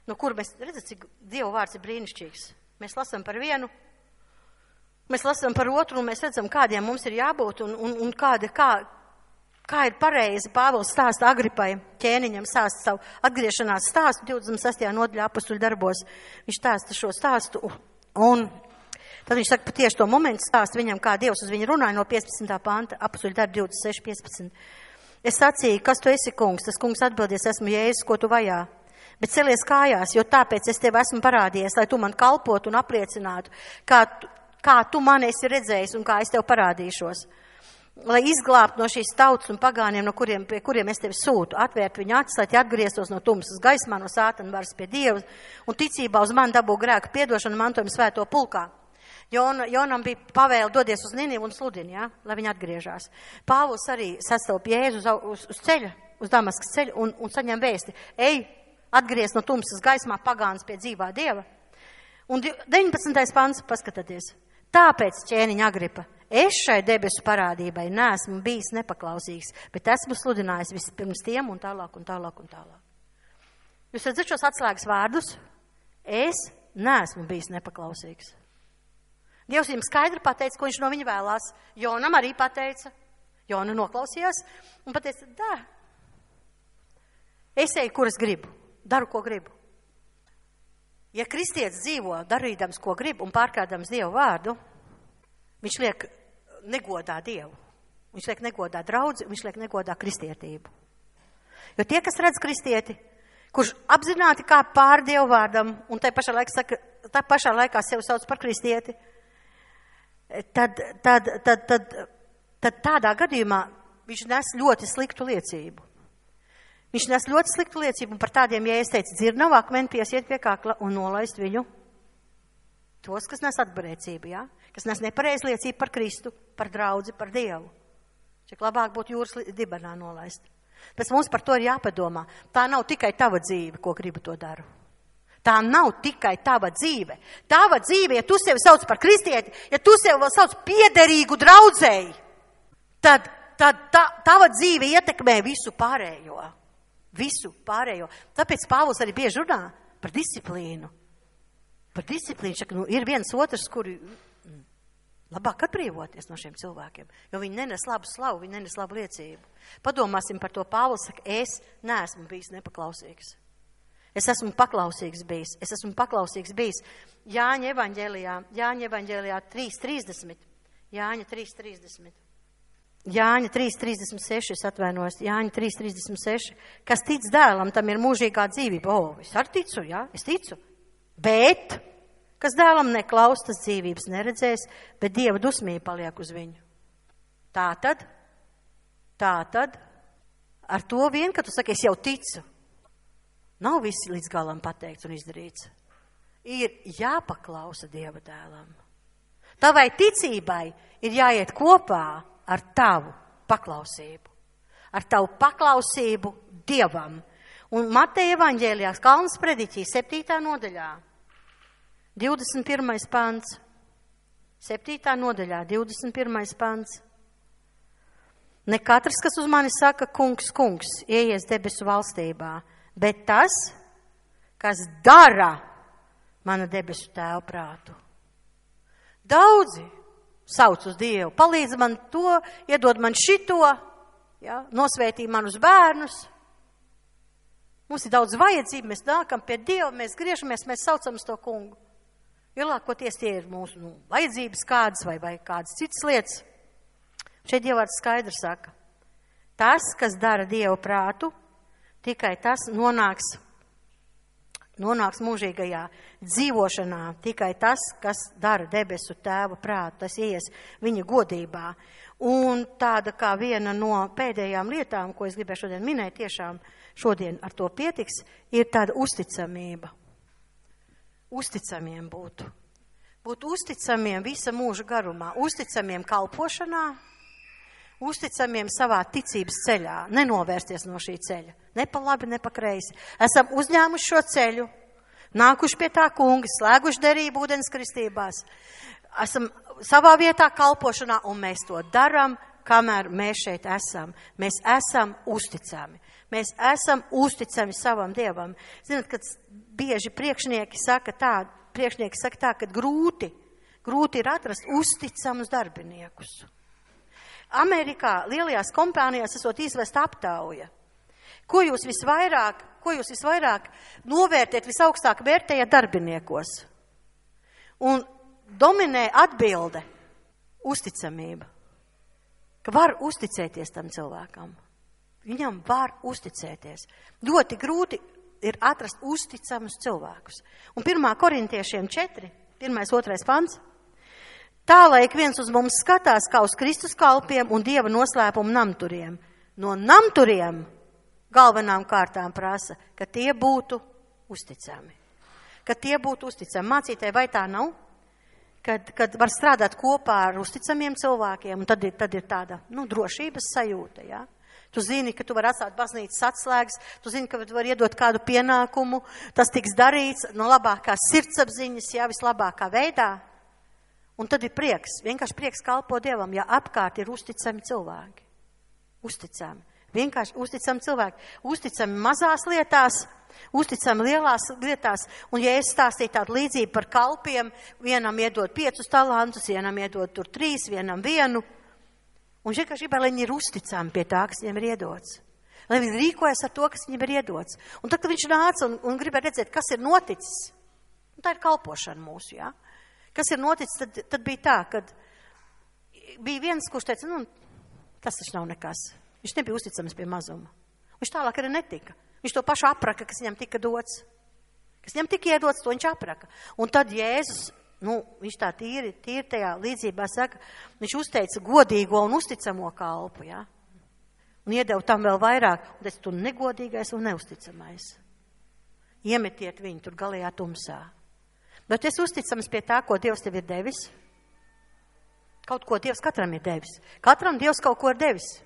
no kura mēs redzam, cik Dieva vārds ir brīnišķīgs. Mēs lasām par vienu, mēs lasām par otru, un mēs redzam, kādiem mums ir jābūt, un kā ir pareizi. Pāvils stāsta Agripai, ķēniņam stāsta savu atgriešanās stāstu 26. nodaļā Apostuļu darbos. Viņš stāsta šo stāstu, un tad viņš saka, tieši to momentu stāsta viņam, kā Dievs uz viņu runāja no 15. panta, Apostuļu darbi 26.15. Es sacīju, kas tu esi, kungs? Tas kungs atbildies, esmu Jēzus, ko tu vajā. Bet celies kājās, jo tāpēc es tev esmu parādījies, lai tu man kalpotu un apliecinātu, kā tu mani esi redzējis un kā es tev parādīšos. Lai izglābtu no šīs tautas un pagāniem, pie kuriem es tevi sūtu, atvērt viņu acis, lai tie atgrieztos no tumsas gaismā, no sātana varas pie Dieva un ticībā uz mani dabū grēku piedošanu mantojumu svēto pulkā. Jonam bija pavēle dodies uz Ninivu un sludini, ja, lai viņi atgriežās. Pāvils arī sastop Jēzu uz ceļa, uz Damaskas ceļu un saņem vēsti. Ej, atgriez no tumsas gaismā pagāns pie dzīvā Dieva. Un 19. pants, paskatieties. Tāpēc, ķēniņa Agripa, es šai debesu parādībai neesmu bijis nepaklausīgs, bet esmu sludinājis vispirms tiem un tālāk. Jūs redzat šos atslēgas vārdus? Es neesmu bijis nepaklausīgs. Dievs viņam skaidri pateica, ko viņš no viņa vēlās. Jonam arī pateica. Jona noklausījās un pateica, dā, es eju, kur es gribu, daru, ko gribu. Ja kristietis dzīvo darīdams, ko grib un pārkādams Dievu vārdu, viņš liek negodā Dievu. Viņš liek negodā draudzi, viņš liek negodā kristietību. Jo tie, kas redz kristieti, kurš apzināti kā pār Dievu vārdam un tā pašā laikā sevi sauc par kristieti, tad tādā gadījumā viņš nes ļoti sliktu liecību. Viņš nes ļoti sliktu liecību, un par tādiem, ja es teicu, dzirnavu akmeni piesiet pie kakla un nolaist viņu. Tos, kas nes atbarēcību, ja? Kas nes nepareiz liecību par Kristu, par draudzi, par Dievu. Cik labāk būtu jūras dibenā nolaist. Pēc mums par to ir jāpadomā. Tā nav tikai tava dzīve, ko gribu to daru. Tā nav tikai tava dzīve. Tava dzīve, ja tu sevi sauc par kristieti, ja tu sevi vēl sauc piederīgu draudzēji, tad tava dzīve ietekmē visu pārējo. Visu pārējo. Tāpēc Pāvils arī bieži runā par disciplīnu. Par disciplīnu. Ir viens otrs, kuri Labāk atbrīvoties no šiem cilvēkiem, jo viņi nenes labu slavu, viņi nenes labu liecību. Padomāsim par to. Pāvils saka, es neesmu bijis nepaklausīgs. Es esmu paklausīgs bijis. Jāņa evaņģēlijā 3.30. Jāņa 3.30. Jāņa 3.36, es atvainojos, Jāņa 3.36. Kas tic dēlam, tam ir mūžīgā dzīvība. Es arī ticu, jā, es ticu. Bet, kas dēlam neklaus, tas dzīvības neredzēs, bet Dieva dusmība paliek uz viņu. Tātad, ar to vien, ka tu saki, es jau ticu, nav viss līdz galam pateikts un izdarīts. Ir jāpaklausa Dieva dēlam. Tavai ticībai ir jāiet kopā ar tavu paklausību. Ar tavu paklausību Dievam. Un Mateja evaņģēlijā, Kalnas prediķī, 7. nodaļā, 21. pants. 7. nodaļā, 21. pants. Ne katrs, kas uz mani saka, kungs, kungs, ieies debesu valstībā, bet tas, kas dara mana debesu tēva prātu. Daudzi sauc uz Dievu, palīdz man to, iedod man šito, ja, nosvētī manus bērnus. Mums ir daudz vajadzību, mēs nākam pie Dieva, mēs griežamies, mēs saucam uz to kungu. Lielākoties tie ir mūsu vajadzības kādas vai kādas citas lietas. Šeit Dievvārds skaidri saka, tas, kas dara Dieva prātu, tikai tas nonāks mūžīgajā dzīvošanā, tikai tas, kas dara debesu tēva prātu, tas ies viņa godībā. Un tāda kā viena no pēdējām lietām, ko es gribēju šodien minēt, tiešām šodien ar to pietiks, ir tāda uzticamība. Uzticamiem būt. Būt uzticamiem visa mūža garumā, uzticamiem kalpošanā, uzticamiem savā ticības ceļā, nenovērsties no šī ceļa, ne pa labi, ne pa kreisi. Esam uzņēmuši šo ceļu, nākuši pie tā kunga, slēguši derību ūdens kristībās, esam savā vietā kalpošanā, un mēs to daram, kamēr mēs šeit esam. Mēs esam uzticami. Mēs esam uzticami savam Dievam. Zināt, kad bieži priekšnieki saka tā, ka grūti ir atrast uzticamus darbiniekus. Amerikā lielajās kompānijās esot izvest aptauja. Ko jūs visvairāk novērtēt, visaugstāk vērtējat darbiniekos? Un dominē atbilde uzticamība. Ka var uzticēties tam cilvēkam. Viņam var uzticēties. Ļoti grūti ir atrast uzticamus cilvēkus. Un 1. Korintiešiem 4, 1.2. pants. Tā, lai ik viens uz mums skatās kā uz Kristus kalpiem un Dieva noslēpumu namturiem. No namturiem galvenām kārtām prasa, ka tie būtu uzticami. Mācītāji, vai tā nav? Kad var strādāt kopā ar uzticamiem cilvēkiem, un tad ir tāda, drošības sajūta, jā. Tu zini, ka tu vari atstāt baznīcas atslēgas, tu zini, ka tu vari iedot kādu pienākumu, tas tiks darīts no labākās sirdsapziņas, jā, vislabākā veidā. Un tad ir prieks, vienkārši prieks kalpo Dievam, ja apkārt ir uzticami cilvēki. Vienkārši uzticami cilvēki. Uzticami mazās lietās, uzticami lielās lietās. Un ja es stāstīju tādu līdzību par kalpiem, vienam iedod 5 talantus, vienam iedod tur 3, vienam 1. Un vienkārši gribēja, lai viņi ir uzticami pie tā, kas viņiem ir iedots. Lai viņi rīkojas ar to, kas viņiem ir iedots. Un tad, kad viņš nāca un gribēja redzēt, kas ir noticis, un tā ir kalpošana mūsu, jā. Kas ir noticis, tad bija tā, kad bija viens, kurš teica, tas taču nav nekas. Viņš nebija uzticams pie mazuma. Viņš tālāk arī netika. Viņš to pašu apraka, kas viņam tika dots. Kas viņam tika iedots, to viņš apraka. Un tad Jēzus, viņš tā tīri tajā līdzībā saka, viņš uzteica godīgo un uzticamo kalpu, jā. Un iedeva tam vēl vairāk. Un teica, tu negodīgais un neusticamais. Iemetiet viņu tur galējā tumsā. Bet es uzticams pie tā, ko Dievs tev ir devis. Kaut ko Dievs katram ir devis. Katram Dievs kaut ko ir devis.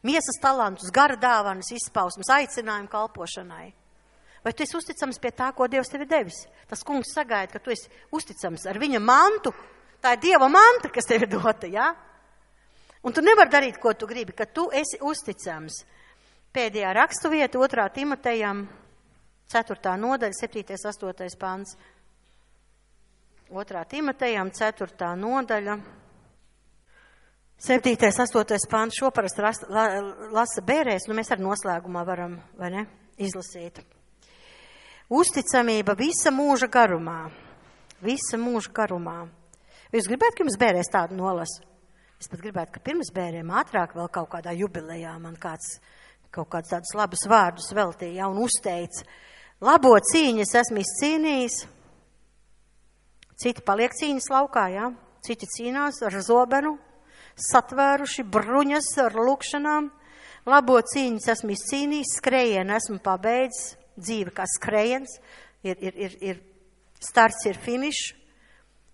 Miesas talantus, gara dāvanas, izpausmes, aicinājumu kalpošanai. Vai tu esi uzticams pie tā, ko Dievs tev ir devis? Tas kungs sagaida, ka tu esi uzticams ar viņa mantu. Tā ir Dieva manta, kas tev ir dota, jā? Un tu nevari darīt, ko tu gribi, ka tu esi uzticams. Pēdējā rakstu vieta 2. Timotejam, 4. nodaļa, 7. 8. pants. 2. Timotejam, 4. nodaļa, 7. 8. pāns šo parasti lasa bērēs, nu mēs ar noslēgumā varam, vai ne, izlasīt. Uzticamība visa mūža garumā. Visa mūža garumā. Jūs gribētu, ka jums bērēs tādu nolasu? Es pat gribētu, ka pirms bērēm ātrāk vēl kaut kādā jubilejā man kāds tādus labus vārdus veltīja un uzteica. Labo cīņu es esmu izcīnījis. Citi paliek cīņas laukā, jā. Citi cīnās ar zobenu, satvēruši bruņas ar lūkšanām. Labo cīņu es esmu izcīnījis, skrējienu esmu pabeidzis, dzīve kā skrējiens, ir starts, ir finišs.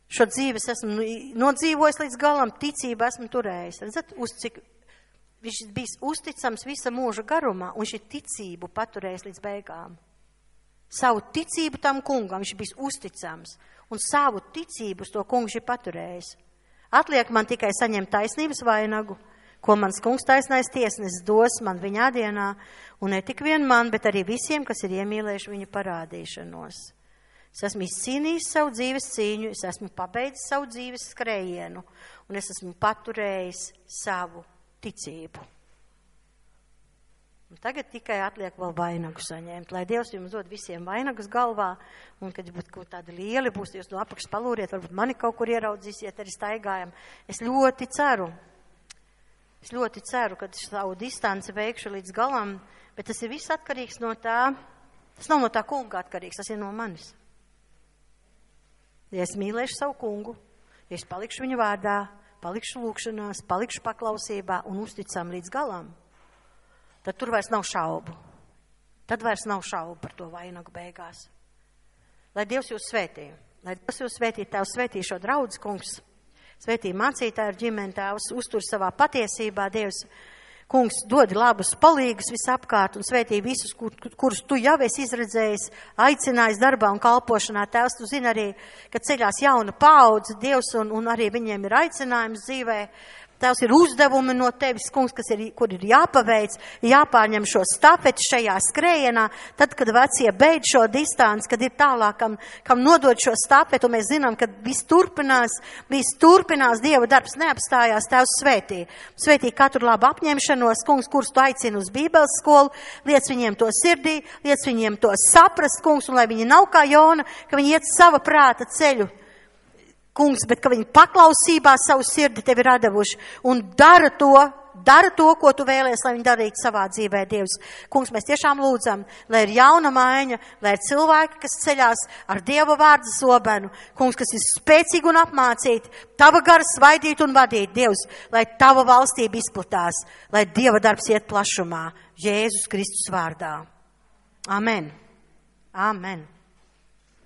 Šo dzīves esmu nodzīvojis līdz galam, ticību esmu turējis. Redzat, cik viņš bijis uzticams visa mūža garumā, un viņš ir ticību paturējis līdz beigām. Savu ticību tam kungam viņš bijis uzticams, un savu ticību uz to kungu viņš ir paturējis. Atliek man tikai saņemt taisnības vainagu, ko mans kungs taisnais tiesnesis dos man viņā dienā, un ne tik vien man, bet arī visiem, kas ir iemīlējuši viņa parādīšanos. Es esmu izcīnījis savu dzīves cīņu, es esmu pabeidzis savu dzīves skrējienu, un es esmu paturējis savu ticību. Un tagad tikai atliek vēl vainagu saņemt, lai Dievs jums dod visiem vainagus galvā, un kad būtu tādi lieli būs, jūs no apakšas palūriet, varbūt mani kaut kur ieraudzīsiet, arī staigājam. Es ļoti ceru, ka savu distanci veikšu līdz galam, bet tas ir viss atkarīgs no tā, tas nav no tā kunga atkarīgs, tas ir no manis. Ja es mīlēšu savu kungu, ja es palikšu viņa vārdā, palikšu lūkšanās, palikšu paklausībā un uzticam līdz galam, tad tur vairs nav šaubu. Tad vairs nav šaubu par to vainagu beigās. Lai Dievs jūs svētī. Lai Dievs jūs svētī, Tēvs svētī šo draudz, kungs. Svētī mācītāju ar ģimeni, Tēvs uztur savā patiesībā, Dievs. Kungs, dod labus palīgus visapkārt un svētī visus, kurus tu jau esi izredzējis, aicinājis darbā un kalpošanā. Tēvs, tu zini arī, ka ceļās jauna paudze, Dievs, un arī viņiem ir aicinājums dzīvē. Tēvs, ir uzdevumi no tevis, kungs, kur ir jāpaveic, jāpārņem šo stafeti šajā skrējienā, tad, kad vecie beidz šo distanci, kad ir tālāk, kam nodod šo stafeti, un mēs zinām, ka viss turpinās, Dieva darbs neapstājās, Tēvs svētī. Svētī katru labu apņemšanos, kungs, kurus tu aicini uz Bībeles skolu, liec viņiem to sirdī, liec viņiem to saprast, kungs, un lai viņi nav kā Jona, ka viņi iet sava prāta ceļu. Kungs, bet ka viņi paklausībā savu sirdi tevi radavuši un dara to, ko tu vēlies, lai viņi darītu savā dzīvē, Dievs. Kungs, mēs tiešām lūdzam, lai ir jauna maiņa, lai ir cilvēki, kas ceļās ar Dieva vārdu zobenu. Kungs, kas ir spēcīgi un apmācīti, tava gara svaidīt un vadīt, Dievs, lai tava valstība izplatās, lai Dieva darbs iet plašumā. Jēzus Kristus vārdā. Amen. Amen.